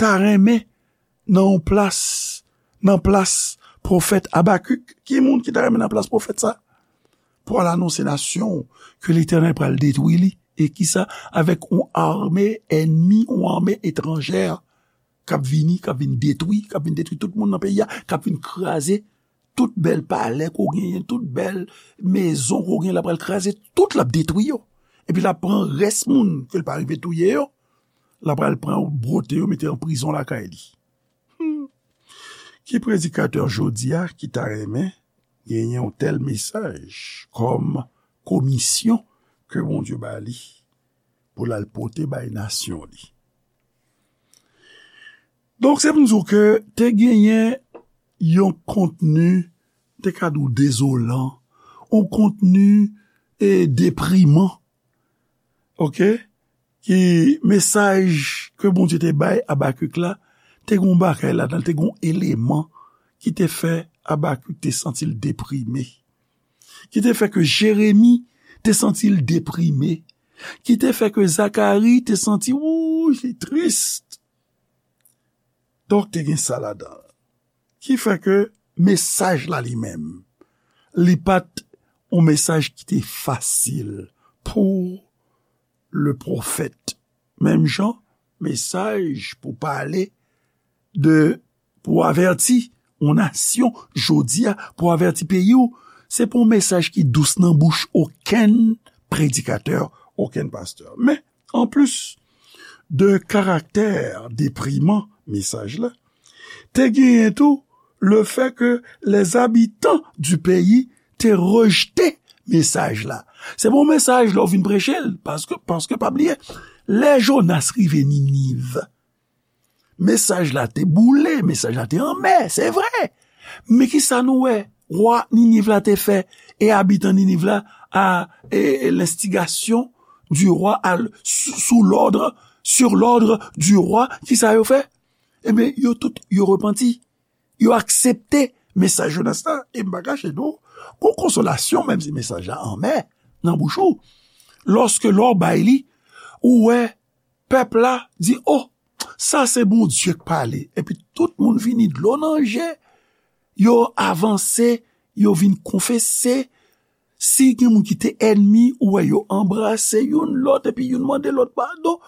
ta renmen nan yon plas, nan plas pwofèt Abakik? Ki moun ki ta renmen nan plas pwofèt sa? Pou al anonse nasyon ke Letènèl pral detwi li. E kisa? Avèk yon ame ènmi, yon ame etranjè k ap vini, k ap vin detwi, k ap vin detwi tout moun nan peyi a, k ap vin kraze tout bèl palè ke w genyen, tout bèl mezon ke w genyen, l ap pral kraze tout, l ap detwi yo. Epi l ap pran rès moun ke l pa rive touye yo, l ap pral pran yo, bwote yo, mete yo an prizon lakay li. Hmm. Ki predikatè jodi a ki ta renmen genyen yon tèl mesaj kòm komisyon ke Bondye ba li pou l al pote bay nasyon li? Donk, se pou m di w ke te genyen yon kontni, te ka di w dezolan, yon kontni e depriman, oke? Ki mesaj ke Bondye te bay Abakik la, te gen yon bagay ladan l, te gen yon eleman ki te fè Abakik te santi l deprime, ki te fè ke Jeremi te santi l deprime, ki te fè ke Zakari te santi, wouy, li tris. Donk, te gen sa ladan l. Ki fè ke mesaj la li menm, li pa t yon mesaj ki te fasil pou le pwofèt. Menm jan, mesaj pou pale de, pou avèti yon nasyon jodi a, pou avèti peyi w, se pa yon mesaj ki dous nan bouch okenn predikatè, okenn pastè. Men, anplis de karaktè depriman mesaj la, te genyen tou le fè ke les habitants du pays te rejte mesaj la. Se pa yon mesaj lè w vin preche l, paske, paske pa bliye, lè Jonas rive Niniv, mesaj la te boule, mesaj la te anmè, se vre. Men kisa nou wè wa Niniv la te fè e abitan Niniv la a, e, e, l'instigation du roi, à l-, sous, sous l'ordre, sur l'ordre du roi, kisa yo fè? Ebyen, yo tout, yo repanti. Yo aksepte mesaj Jonas la, e m pa kache di w, gon konsolasyon, menm si mesaj la anmè nan bouch ou. Lòske lè w bay li, ou wè pèp la di, "O, sa se Bondye k pale." Epi tout moun vini dlo nan je, yo avanse, yo vin konfese. Si gen moun ki te ènmi, ou wè yo anbrase youn lòt, epi youn mande lòt padon.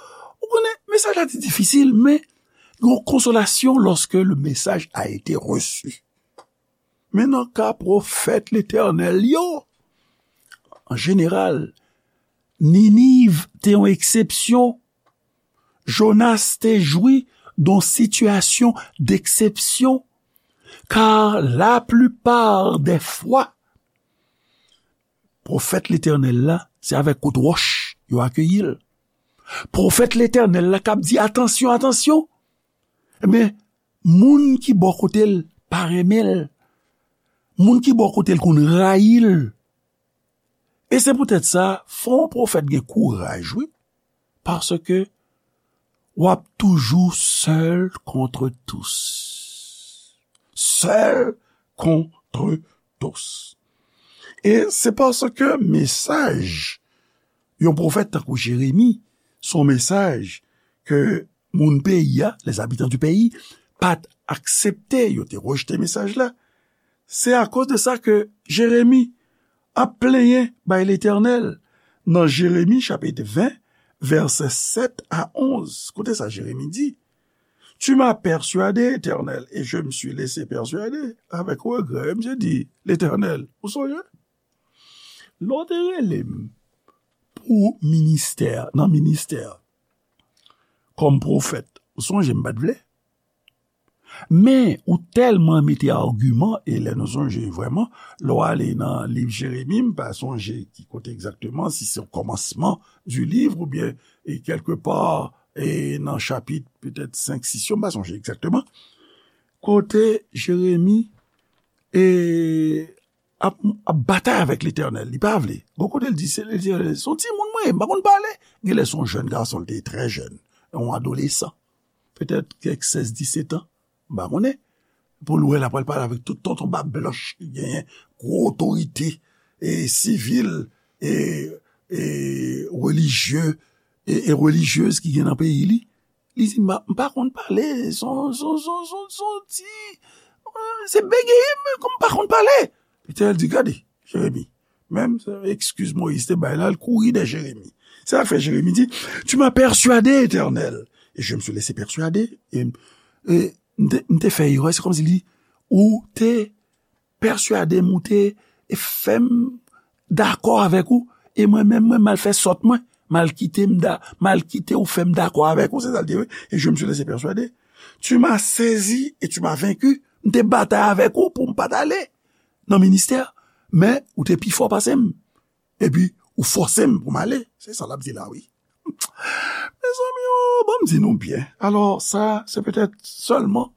Ou konnen, mesaj la te difisil, men yon konsolasyon lorsque le message a été reçu. Men nan ka pwofèt Letènèl yo, an jeneral, Niniv te yon eksepsyon. Jonas te jwi d on sitiyasyon deksepsyon, kar laplipar dè fwa, pwofèt Letènèl la, se avèk kout wòch yo akeyi l. Pwofèt Letènèl la k ap di, "Atansyon, atansyon!" Ebyen, moun ki bò kote l pa renmen l. Moun ki bò kote l konn rayi l. E se poutèt sa, fò yon pwofèt gen kouraj, wi. Paske w ap toujou seul contre tous. Seul contre tous. E se paske mesaj yon pwofèt tankou Jeremi, se yon mesaj ke moun peyi a, les habitants du pays, pa t aksepte, yo te rejte mesaj la. Se akoz de sa ke Jeremi ap plenyen bay Letènèl nan Jeremi chapit ven, vèsè sèt a onz. Koute sa Jeremi di, "Tu m'as persuadé, Éternel, et je me suis laissé persuader avec regret." Misye di, "Letènèl, ou sonje? Lè w te rele m pou ministè, nan ministè, kòm pwofèt, ou sonje m pa t vle? Men, ou tèlman mete agiman, e lè nou sonje vrèman, lè w ale nan liv Jeremi, m pa sonje ki kote egzakteman, si se o kòmansman di liv oubyen, e kèlkepa, e nan chapit petèt senk, sis yo, m pa sonje egzakteman, kote Jeremi, e ap, ap batay avèk Letènèl. Li pa vle. Gon kote l di, se Letènèl, se yon timoun mwen ye, m pa konn pale. Genlè se yon jèn gason, li te trè jèn, yon adolesan. Petèt kèk sèz, disèt an, m pa konnen. Pou l wè l ap pral pale avèk tout tonton bab blanch ki genyen gwo otorite, e sivil, e, e relijye, e, e relijyez ki gen nan peyi li. Li di, "M pa, m pa konn pale, son, son, son, son, son ti, se bege m, kòm m pa konn pale." Letènèl di, "Gade, Jeremi, menm eskiz Moyiz te bay la, l kouri dèyè Jeremi." Se sa k fè Jeremi di, "Tu m'as persuadé, Éternel, et je me suis laissé persuader." E, e m te, m te fè erè, se kòmsi li, ou te pèswade m, ou te fè m dakò avèk ou, e mwen menm, mwen m al fè sòt mwen, m al kite m da, m al kite ou fè m dakò avèk ou, se sa l di, wi. "Et je me suis laissé persuader. Tu m'as saisi et tu m'as vaincu." M te batay avèk ou pou m pa t ale nan ministè, men ou te pi fò pase m. Epi, ou fòse m pou m ale. Se sa l ap di la, wi. Mezanmi, o, ban m di nou byen. Alò, sa, se petèt sèlman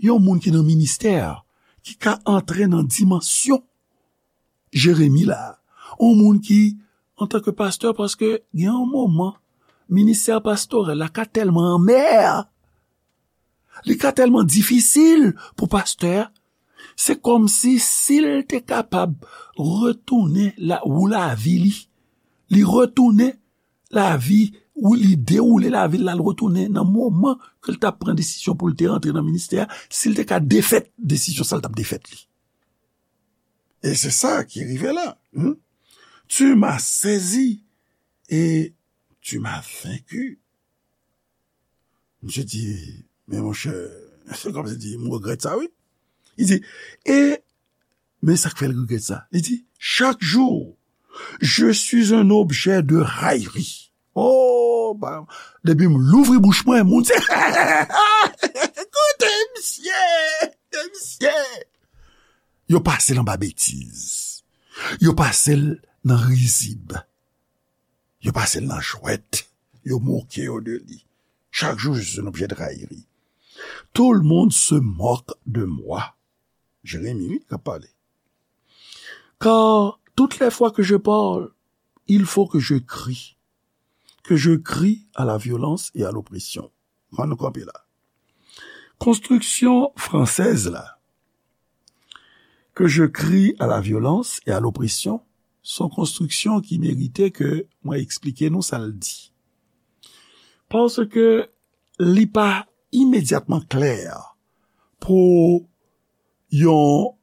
yon moun ki nan ministè, ki ka antre nan dimansyon Jeremi la. Yon moun ki, antanke pastè, paske gen yon moman, ministè pastorèl la ka tèlman anmè, li ka tèlman difisil pou pastè a, se kòmsi si l te kapab retounen la, ou lavi li, li retounen lavi, ou li dewoule lavi l, l al retounen nan moman ke l t ap pran desizyon pou l te rantre nan ministè a, si l te ka defèt desizyon sa, l t ap defèt li. E se sa ki rive la. Hmm? Tu m'as saisi et tu m'as vaincu. Misye di, men monchè, se kòmsi di, m regrèt sa, wi. Li di, e, men sa k fè l regrèt sa. Li di, chaque jour, je suis un objet de raillerie. Oh, ba, depi m louvri bouch mwen, moun se, koute misye, koute misye. Yo pase l anba betiz. Yo pase l nan rizib. Yo pase l nan jwèt. Yo moke yo de li. Chaque jour, je suis un objet de raillerie. Tout le monde se moque de moi. Jeremi, wi, k ap pale. Car toutes les fois que je parle, il faut que je crie. Que je crie à la violence et à l'oppression. Ann nou kanpe la. Konstriksyon fransèz la, que je crie à la violence et à l'oppression, se yon konstriksyon ki merite ke mwen eksplike nou sa l di. Paske li pa imedyatman klè pou yon,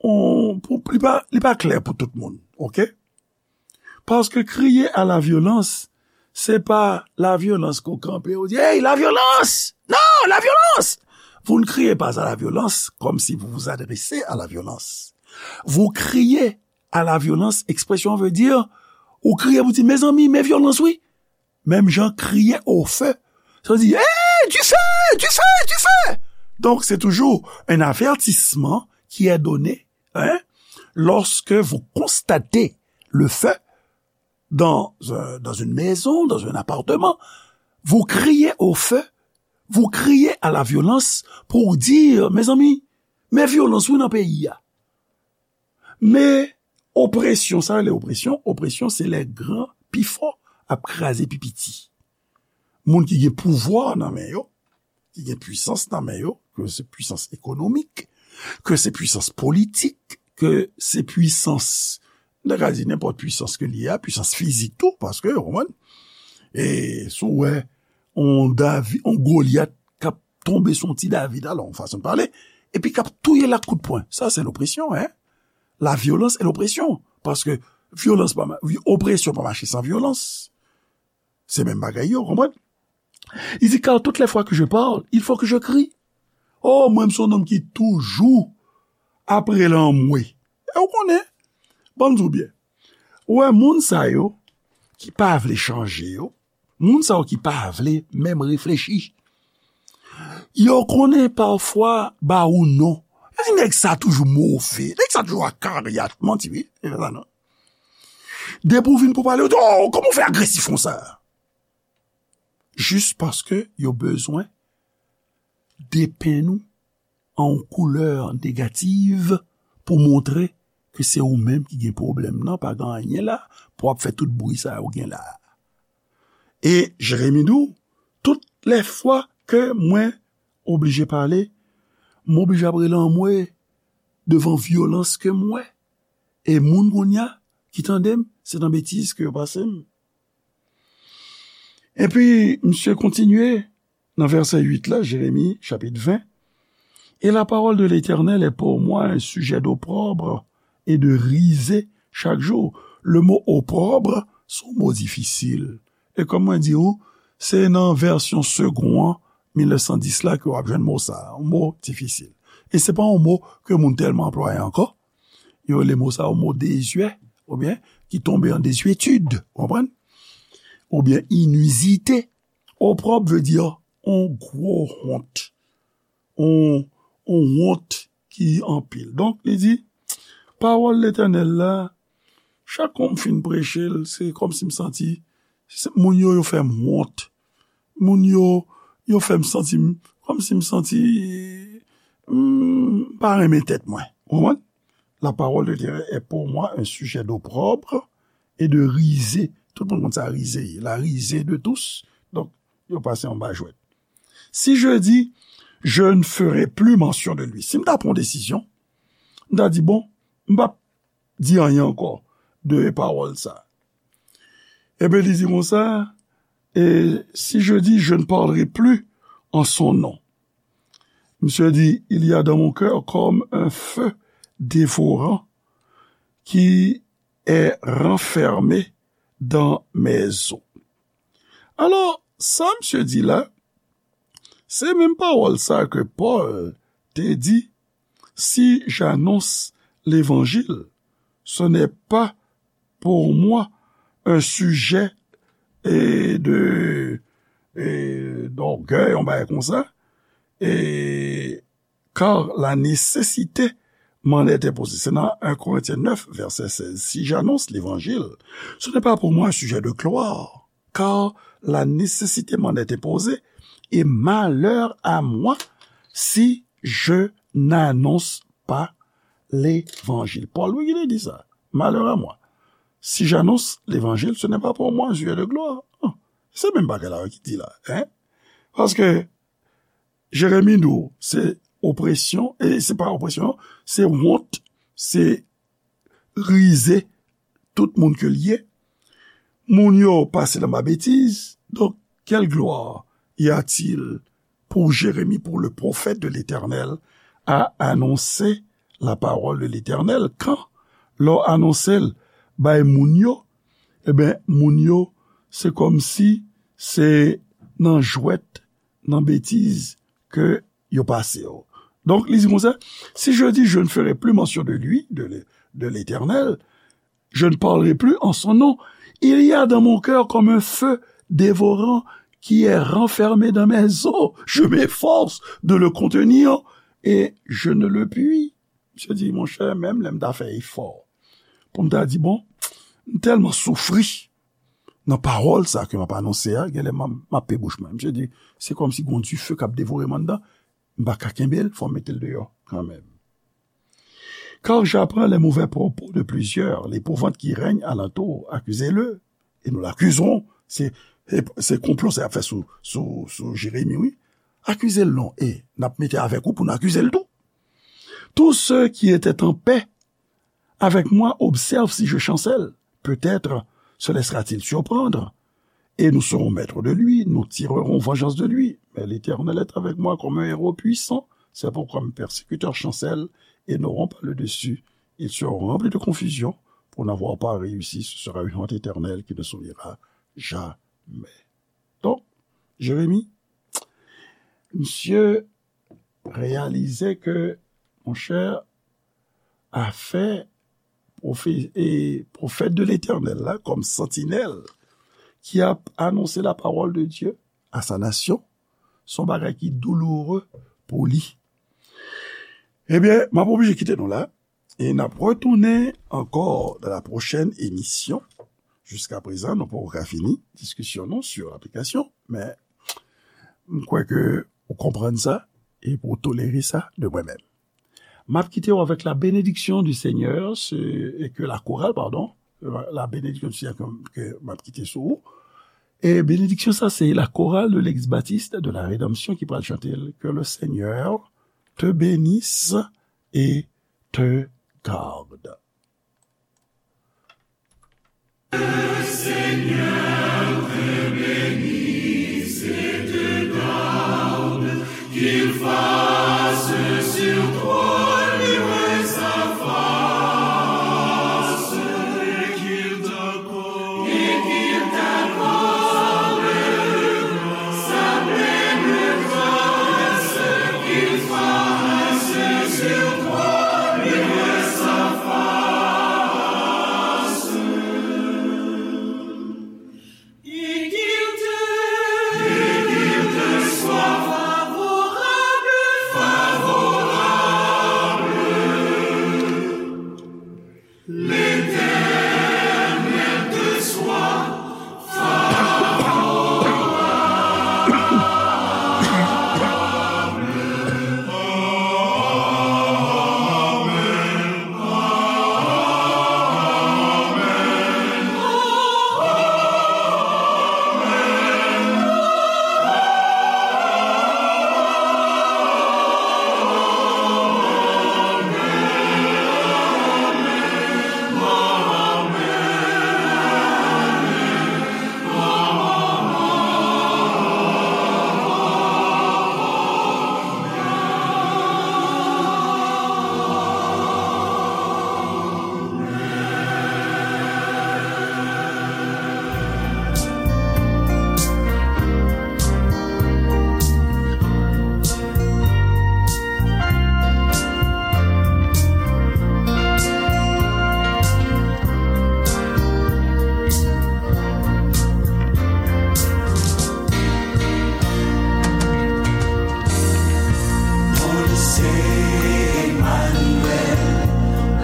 yon, pou, li pa, li pa klè pou tout moun, oke? Paske kriye a la vyolans, se pa la vyolans ke w kanpe, ou di, "Hey, la vyolans! Non, la vyolans!" Vous ne criez pas à la violence comme si vous vous adressez à la violence. Vous criez à la violence, expression veut dire, ou kriye pou di, mezanmi, men vyolans wi. Menm jan kriye au feu, sa di, hey, du feu, du feu, du feu. Donc, c'est toujours un avertissement qui est donné, hein, lorsque vous constatez le feu dans, euh, dans une maison, dans un appartement, vous criez au feu, vous criez à la violence pour dire, mezanmi, men vyolans wi nan peyi a. Men opresyon, sa rele opresyon, opresyon se lè gran pi fò ap kraze pi piti. Moun ki gen pouvwa nan men yo, ki gen pwisans nan men yo, ke se pwisans ekonomik, ke se pwisans politik, ke se pwisans, n ta ka di nenpòt pwisans ke li ye a, pwisans fizik tou, paske, ou konprann, e si w wè on Davi, on Golyat k ap tonbe sou on ti David, alò, yon fason de pale, epi k ap touye l ak kout pwen. Sa se lopresyon, hein? La violence et l'oppression. Paske vyolans pa, opresyon pa mache san vyolans. Se menm bagay yo, konprann? Li di, car toutes les fois que je parle, il faut que je crie. Oh, mwen, m se yon nonm ki toujou ap rele anmwe. E w konnen, ban m di w byen. Ou wè, moun sa yo ki pa vle chanje yo, moun sa yo ki pa vle menm reflechi, yo konnen pafwa ba ou non. Yo di, nèg sa toujou move, nèg sa toujou akaryat, manti wi, e pa sa non. Depi w vin pou pale, yo di, oh, kòman w fè agresif konsa? Jis paske yo bezwen depenn ou an yon koulè negativ pou montre ke se ou menm ki gen pwoblèm nan, pa gen anyen la, pou w ap fè tout bri sa yo gen la. E Jeremi di w, tout lè fwa ke mwen oblije pale, m oblije ap rele anmwe devan vyolans ke m wè. E moun kounye a ki tande m, se nan betiz ke yo pase m. Epi, misye kontinye nan vèsè uit la, Jeremi, chapit ven. Et la parole de l'Éternel est pour moi un sujet d'opprobre et de risée chaque jour. Le mot opprobre, se yon mo difisil. E kòm mwen di w, se nan vèsyon Segond an, mil nèf san dis la, ke w ap jwenn mo sa a, yon mo difisil. E se pa yon mo ke moun tèlman anplwaye ankò. Yo rele mo sa a yon mo dezyè, oubyen ki tonbe an dezyetid, w konprann? Oubyen inizite. Opprobre veut dire on gwo wont. On, on wont ki anpil. Donk, li di, pawòl Letènèl la, chak kon m fin preche l, se kòmsi m santi, se, moun yo, yo fè m wont. Moun yo, yo fè m santi m, kòmsi m santi, m pa renmen tèt mwen. Ou konprann? La parole de Dieu est pour moi un sujet d'opprobre et de risée. Tout moun konn sa risée ye. La risée de tous. Donk, yo pase anba jwèt. Si je dis, je ne ferai plus mention de lui. Si m ta pran yon desizyon, m ta di, bon, m p ap di anyen ankò de pawòl sa. Ebyen, li di konsa, et si je dis, je ne parlerai plus en son nom. Misye di, il y a dans mon cœur comme un feu dévorant qui est renfermé dans mes os. Alò, sa misye di la, se menm pawòl sa ke Pòl te di, si j'annonce l'évangile, ce n'est pas pour moi un sujet, eh, de, eh, d'orgueil, yon bagay konsa, eh, car la nécessité m'en est imposée. C'est dans un Corinthiens neuf, verset seize. Si j'annonce l'évangile, ce n'est pas pour moi un sujet de gloire, car la nécessité m'en est imposée, et malheur à moi si je n'annonce pas l'évangile. Pòl, wi, ki te di sa. Malheur à moi. Si j'annonce l'évangile, ce n'est pas pour moi un sujet de gloire. Se menm bagay la ki di la, hein? Paske Jeremi di w, se opresyon, e se pa opresyon, se wont, se rize tout moun ke l ye. Moun yo pase l anba betiz. Donc, quelle gloire y a-t-il pour Jérémie, pour le prophète de l'Éternel, à annoncer la parole de l'Éternel? Quand lè w anonse l bay moun yo, ebyen, moun yo, se kòmsi se nan jwèt, nan betiz ke yo pase w. Donk, li di konsa, si je dis, je ne ferai plus mention de lui, de, de l'Éternel, je ne parlerai plus en son nom. Il y a dans mon cœur comme un feu dévorant qui est renfermé dans mes os. Je m'efforce de le contenir et je ne le puis. Misye di, monchè, menm lè m ta fè efò pou m ta di, bon, m tèlman soufri nan pawòl sa ke m ap anonse a, genlè m ap, m ap pe bouch mwen. Misye di, se kòmsi gon dife k ap devore m anndan, m pa ka kenbe l, fò m mete l deyò kanmenm. Car j'apprends les mauvais propos de plusieurs, l'épouvante qui règne alentour, accusez-le, et nous l'accuserons. Se, se, se konplo sa y ap fè sou, sou, sou Jeremi, wi. Akize l non, e n ap mete avèk ou pou n akize l tou. Tous ceux qui étaient en paix avec moi observent si je chancelle. Peut-être se laissera-t-il surprendre, et nous serons maîtres de lui, nous tirerons vengeance de lui. Mais l'Éternel est avec moi comme un héros puissant. C'est pourquoi mes persécuteurs chancellent et n'auront pas le dessus. Ils seront remplis de confusion pour n'avoir pas réussi. Ce sera une honte éternelle qui ne s'oubliera jamais. Donk, Jeremi, misye reyalize ke, monchè, afè pwofe-, e pwofèt de Letènèl la, kòm santinèl, ki ap anonse la parole de Dieu à sa nation, se yon bagay ki douloureux pou li. Ebyen, m ap oblije kite nou la, e n ap retounen ankò dans la prochaine émission. Jiska prezan, nou poko ka fini diskisyon nou sur aplikasyon, men m kwè ke ou konprann sa e pou w tolere sa de mwen menm. M ap kite w avec la bénédiction du Seigneur, se, e ke la chorale, pardon, la, la bénédiction du Seigneur ke, ke m ap kite sou ou. E benediksyon sa, se la chorale de l'Église Baptiste de la Rédemption ki pral chante l, Que le Seigneur te bénisse et te garde. Qu'il fasse sur toi luire sa face, et qu'il t'accorde, et qu'il t'accorde sa pleine grâce, qu'il fasse sur toi luire sa face. Et qu'il te, et qu'il te soit favorable, favorable. L'Éternel te soit favorable. Amen. Moïse Emmanuel,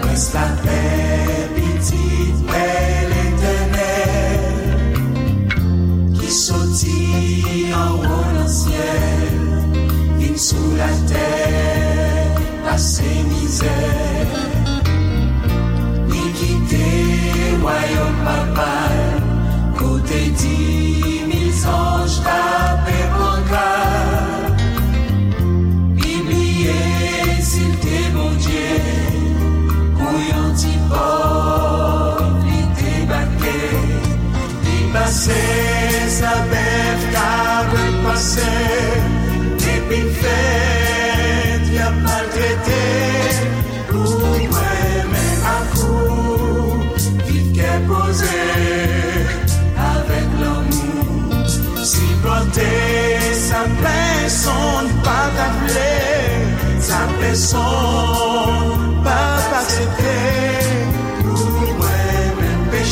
prens lapè, pitit pè Letènèl, ki soti anwo nan syèl, vin sou latè, pase mizè. Li kite wayòm papa l, kote di mil zanj k ap pran kal. Li bliye si l te Bondye, pou yon ti pòv li debake. Li pase sa bèf k ap pase, depi l fèt, y ap maltrete. Pou mwen menm ak ou, viv kè poze, avèk lanmou, sipòte sa pèsonn pa ta vle. Son.